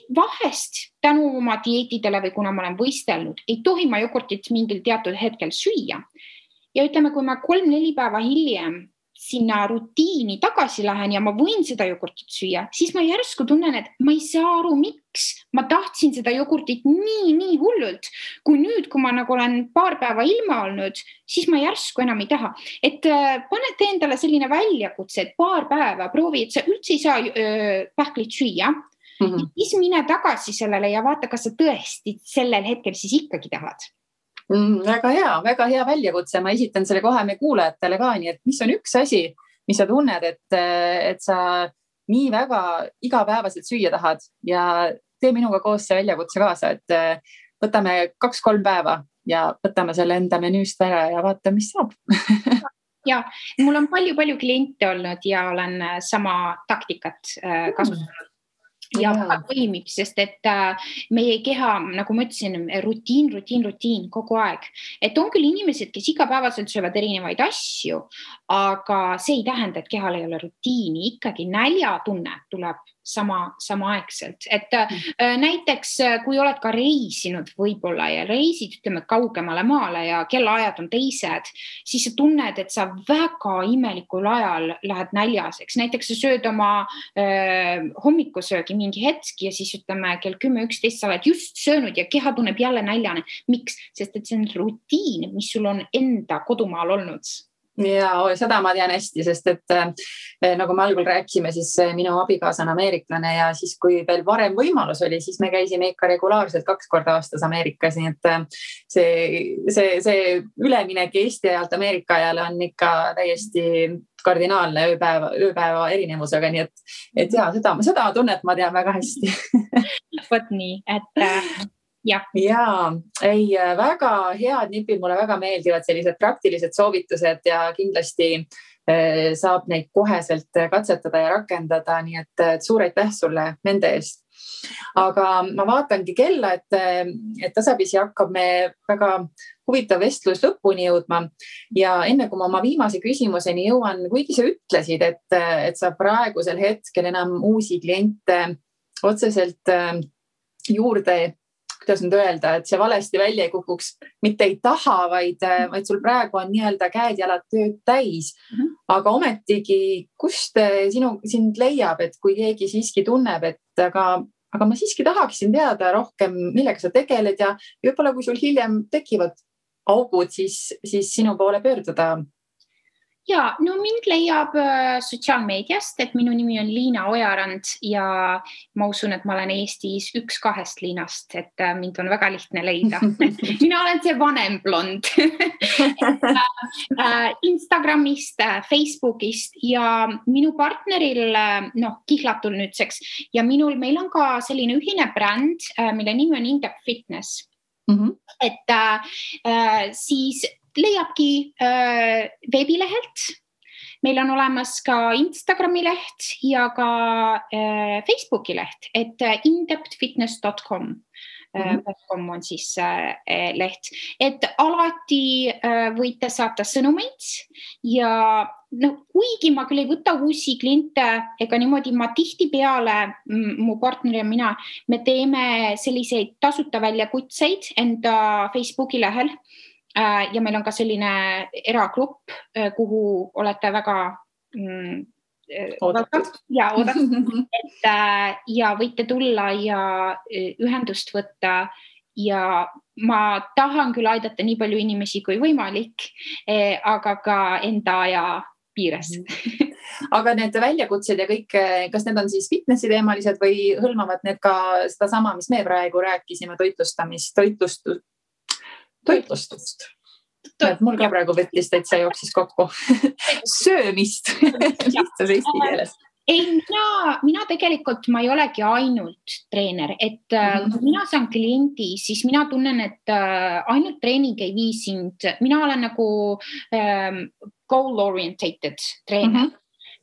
Vahest tänu oma dieetidele või kuna ma olen võistelnud, ei tohi ma jogurtit mingil teatud hetkel süüa. Ja ütleme, kui ma 3-4 päeva hiljem sinna rutiini tagasi lähen ja ma võin seda jogurtit süüa, siis ma järsku tunnen, et ma ei saa aru, miks ma tahtsin seda jogurtit nii hullult, kui nüüd, kui ma nagu olen paar päeva ilma olnud, siis ma järsku enam ei taha. Et panete endale selline väljakutse, et paar päeva proovi, et sa üldse ei saa pähklit süüa, siis mine tagasi sellele ja vaata, kas sa tõesti sellel hetkel siis ikkagi tahad. Väga hea väljakutse. Ma esitan selle kohe me kuulajatele ka, nii et mis on üks asi, mis sa tunned, et sa nii väga igapäevaselt süüa tahad ja tee minuga koos see väljakutse kaasa, et võtame 2-3 päeva ja võtame selle enda menüüst ära ja vaata, mis saab. Ja, mul on palju kliente olnud ja olen sama taktikat kasutanud. Ja toimib, sest et meie keha, nagu ma ütlesin, rutiin kogu aeg. Et on küll inimesed, kes igapäevaselt söövad erinevaid asju, aga see ei tähenda, et kehal ei ole rutiini. Ikkagi näljatunne tuleb samaaegselt. Et näiteks, kui oled ka reisinud võib-olla ja reisid, ütleme, kaugemale maale ja kellaajad on teised, siis sa tunned, et sa väga imelikul ajal lähed näljaseks. Näiteks sa sööd oma hommikusöögi mingi hetki ja siis ütleme kell 10-11 sa oled just söönud ja keha tunneb jälle näljane. Miks? Sest et see on rutiin, mis sul on enda kodumaal olnud. Ja seda ma tean hästi, sest et nagu me algul rääkisime, siis minu abikaasa on ameeriklane ja siis kui veel varem võimalus oli, siis me käisime ikka regulaarselt 2 korda aastas Ameerikas, nii et see üleminek Eesti ajalt Ameerika ajale on ikka täiesti kardinaalne ööpäeva erinevusega, nii et ja seda tunnet ma tean väga hästi. Võt nii, et ja, väga head nipid, mulle väga meeldivad sellised praktilised soovitused ja kindlasti saab neid koheselt katsetada ja rakendada, nii et suur aitäh sulle nende eest. Aga ma vaatangi kella, et tasapisi hakkab me väga huvitav vestlus lõpuni jõudma ja enne kui ma oma viimase küsimuseni jõuan, kuigi sa ütlesid, et sa praegusel hetkel enam uusi kliente otseselt juurde, kuidas nüüd öelda, et see valesti välja ei kukuks, mitte ei taha, vaid sul praegu on nii-öelda käed-jalad tööd täis. Aga ometigi, kust sind leiab, et kui keegi siiski tunneb, et aga ma siiski tahaksin teada rohkem, millega sa tegeled ja võib-olla kui sul hiljem tekivad augud, siis sinu poole pöörduda. Ja, no mind leiab sotsiaalmeediast, et minu nimi on Liina Ojarand ja ma usun, et ma olen Eestis 1-2 Liinast, et mind on väga lihtne leida. Mina olen see vanem blond. Instagramist, Facebookist ja minu partneril, kihlatul nüüdseks ja meil on ka selline ühine bränd, mille nimi on In-Depth Fitness. Et siis leiabki veebilehelt. Meil on olemas ka Instagrami leht ja ka Facebooki leht, et indepthfitness.com on siis leht. Et alati võite saata sõnumeid ja kuigi ma küll ei võta uusi kliente ega niimoodi ma tihtipeale, mu partner ja mina, me teeme selliseid tasuta väljakutseid enda Facebooki lehel. Ja meil on ka selline eragrupp, kuhu olete väga oodatud. Ja võite tulla ja ühendust võtta ja ma tahan küll aidata nii palju inimesi kui võimalik, aga ka enda aja piires. Aga need väljakutsed ja kõik, kas need on siis fitnessi teemalised või hõlmavad need ka seda sama, mis me praegu rääkisime, toitlustust. Mul ka praegu võttis täitsa jooksis kokku. Söömist lihtsas eesti keeles. Ei, mina tegelikult, ma ei olegi ainult treener, et kui mina saan kliendi, siis mina tunnen, et ainult treening ei vii sind. Mina olen nagu goal-orientated treener.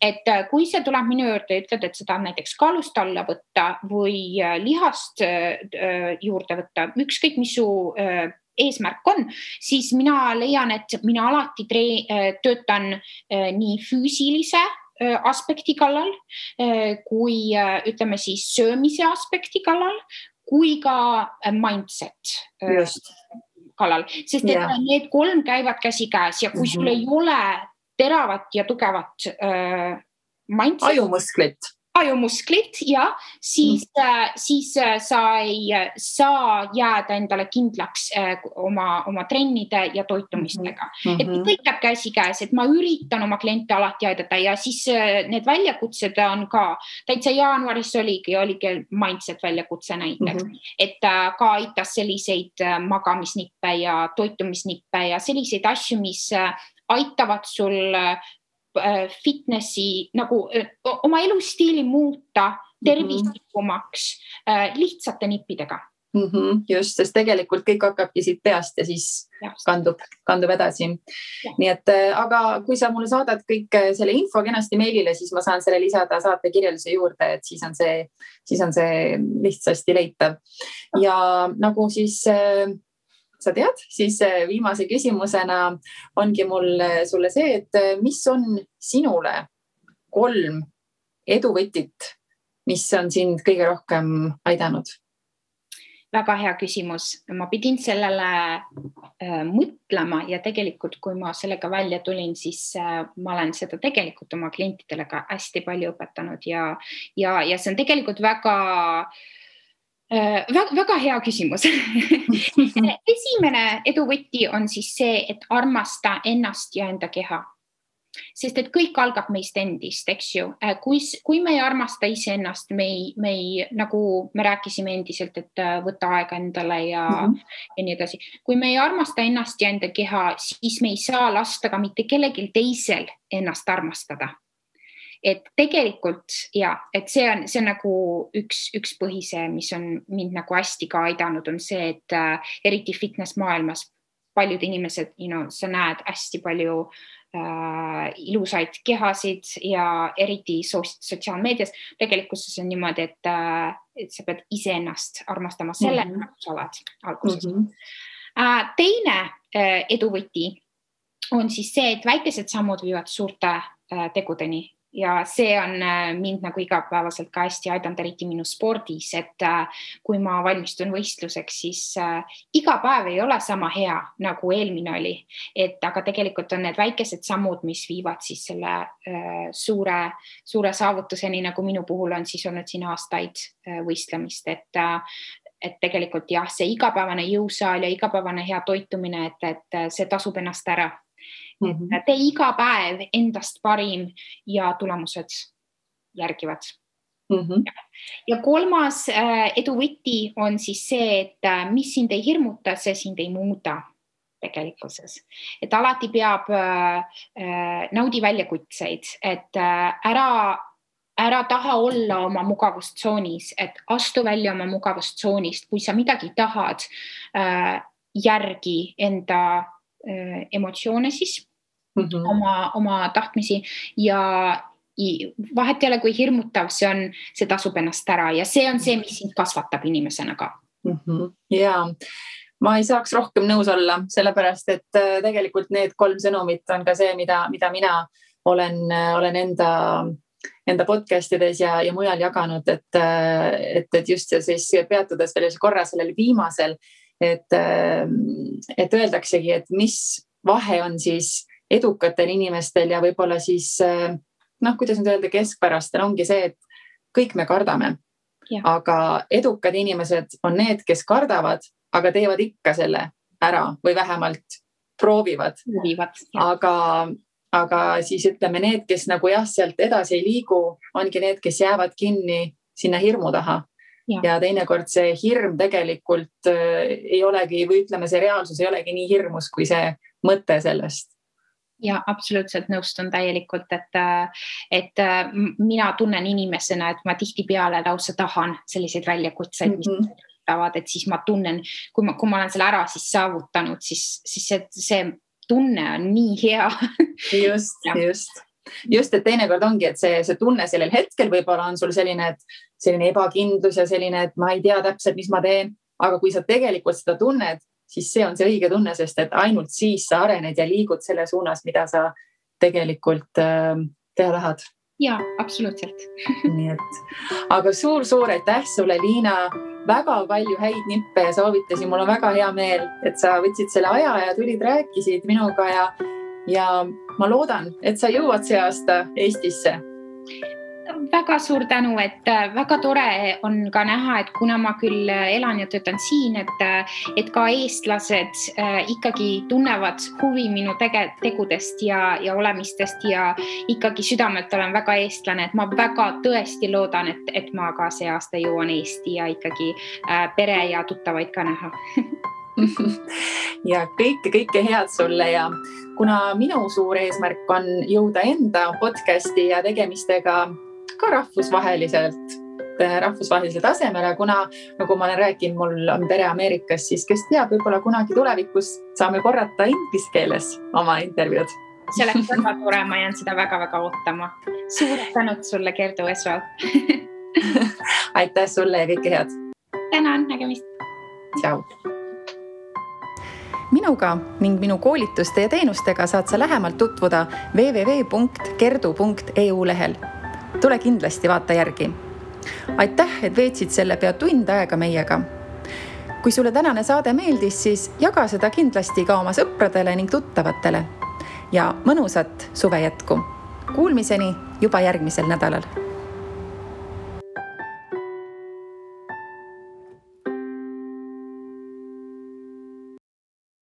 Et kui see tuleb minu juurde ja ütled, et seda näiteks kaalust alla võtta või lihast juurde võtta, ükskõik mis su eesmärk on, siis mina leian, et mina alati töötan nii füüsilise aspekti kallal, kui ütleme siis söömise aspekti kallal, kui ka mindset kallal. Sest et need 3 käivad käsikäes ja kui sul ei ole teravat ja tugevat mindset, ajumusklit ja siis sa ei saa jääda endale kindlaks oma trennide ja toitumistega. Et kõik käib käsikäes, et ma üritan oma kliente alati aidata ja siis need väljakutsed on ka, täitsa jaanuaris oligi mindset väljakutse näiteks, et ka aitas selliseid magamisnippe ja toitumisnippe ja selliseid asju, mis aitavad sul fitnessi nagu oma elustiili muuta tervislikumaks lihtsate nippidega. Just, sest tegelikult kõik hakkabki siit peast ja siis kandub edasi. Nii et, aga kui sa mulle saadad kõik selle info kenasti meilile, siis ma saan selle lisada saate kirjelduse juurde, et siis on see lihtsasti leitav. Ja nagu siis sa tead, siis viimase küsimusena ongi mul sulle see, et mis on sinule 3 eduvõtit, mis on sind kõige rohkem aidanud? Väga hea küsimus. Ma pidin sellele mõtlema ja tegelikult, kui ma sellega välja tulin, siis ma olen seda tegelikult oma klientidele ka hästi palju õpetanud ja see on tegelikult väga hea küsimus. Esimene eduvõti on siis see, et armasta ennast ja enda keha. Sest et kõik algab meist endist, eks ju. Kui me ei armasta iseennast, nagu me rääkisime endiselt, et võtta aega endale ja nii edasi. Kui me ei armasta ennast ja enda keha, siis me ei saa lasta ka mitte kellelgi teisel ennast armastada. Et tegelikult, et see on nagu üks põhise, mis on mind nagu hästi ka aidanud, on see, et eriti fitness maailmas paljud inimesed, sa näed hästi palju ilusaid kehasid ja eriti sotsiaalmeedias. Tegelikult see on niimoodi, et sa pead iseennast armastama selle, nagu sa oled alguses. Teine eduvõti on siis see, et väikesed sammud viivad suurte tegudeni. Ja see on mind nagu igapäevaselt ka hästi aidanud, eriti minu spordis, et kui ma valmistun võistluseks, siis iga päev ei ole sama hea, nagu eelmine oli. Aga tegelikult on need väikesed sammud, mis viivad siis selle suure saavutuseni, nagu minu puhul on siis olnud siin aastaid võistlemist. Et tegelikult see igapäevane jõusaal ja igapäevane hea toitumine, et see tasub ennast ära. Tee iga päev endast parim ja tulemused järgivad. Ja kolmas edu võti on siis see, et mis sind ei hirmuta, see sind ei muuda tegelikkuses. Et alati peab naudi väljakutseid, et ära taha olla oma mugavustsoonis, et astu välja oma mugavustsoonist, kui sa midagi tahad, järgi enda emotsioone siis, oma tahtmisi ja vahet ei ole, kui hirmutav see tasub ennast ära ja see on see, mis sind kasvatab inimesena ka. Jaa, ma ei saaks rohkem nõus olla, sellepärast, et tegelikult need 3 sõnumit on ka see, mida mina olen enda podcastides ja mujal jaganud, et just siis peatudes veel korra sellel viimasel, et öeldaksegi, et mis vahe on siis edukatel inimestel ja võib-olla siis, kuidas nüüd öelda, keskpärastel ongi see, et kõik me kardame, aga edukad inimesed on need, kes kardavad, aga teevad ikka selle ära või vähemalt proovivad. Aga siis ütleme need, kes nagu sealt edasi ei liigu, ongi need, kes jäävad kinni sinna hirmu taha. Ja teinekord see hirm tegelikult ei olegi, või ütleme, see reaalsus ei olegi nii hirmus, kui see mõte sellest. Ja absoluutselt nõustun täielikult, et mina tunnen inimesena, et ma tihtipeale lausa tahan selliseid väljakutseid, mis tavad, et siis ma tunnen, kui ma olen selle ära siis saavutanud, siis see tunne on nii hea. Just, et teinekord ongi, et see tunne sellel hetkel võib-olla on sul selline ebakindlus ja selline, et ma ei tea täpselt, mis ma teen, aga kui sa tegelikult seda tunned, siis see on see õige tunne, sest et ainult siis sa arened ja liigud selle suunas, mida sa tegelikult teha tahad. Jaa, absoluutselt. Nii et, aga suur aitäh sulle, Liina, väga palju häid nippe ja soovitusi. Mul on väga hea meel, et sa võtsid selle aja ja tulid, rääkisid minuga ja ma loodan, et sa jõuad see aasta Eestisse. Väga suur tänu, et väga tore on ka näha, et kuna ma küll elan ja töötan siin, et ka eestlased ikkagi tunnevad huvi minu tegudest ja olemistest ja ikkagi südamelt olen väga eestlane, et ma väga tõesti loodan, et ma ka see aasta jõuan Eesti ja ikkagi pere ja tuttavaid ka näha. Ja kõike head sulle ja kuna minu suur eesmärk on jõuda enda podcasti ja tegemistega ka rahvusvahelisele tasemele, kuna nagu ma olen rääkinud, mul on pere Ameerikas, siis kes teab, võib-olla kunagi tulevikus saame korrata inglise keeles oma intervjuud. See oleks väga tore, ma jään seda väga-väga ootama. Suured tänud sulle, Gerdu Esval. Aitäh sulle ja kõike head. Tänan, nägemist. Tšau. Minuga ning minu koolituste ja teenustega saad sa lähemalt tutvuda www.gerdu.eu lehel. Tule kindlasti vaata järgi. Aitäh, et veetsid selle pea tund aega meiega. Kui sulle tänane saade meeldis, siis jaga seda kindlasti ka oma sõpradele ning tuttavatele. Ja mõnusat suve jätku. Kuulmiseni juba järgmisel nädalal.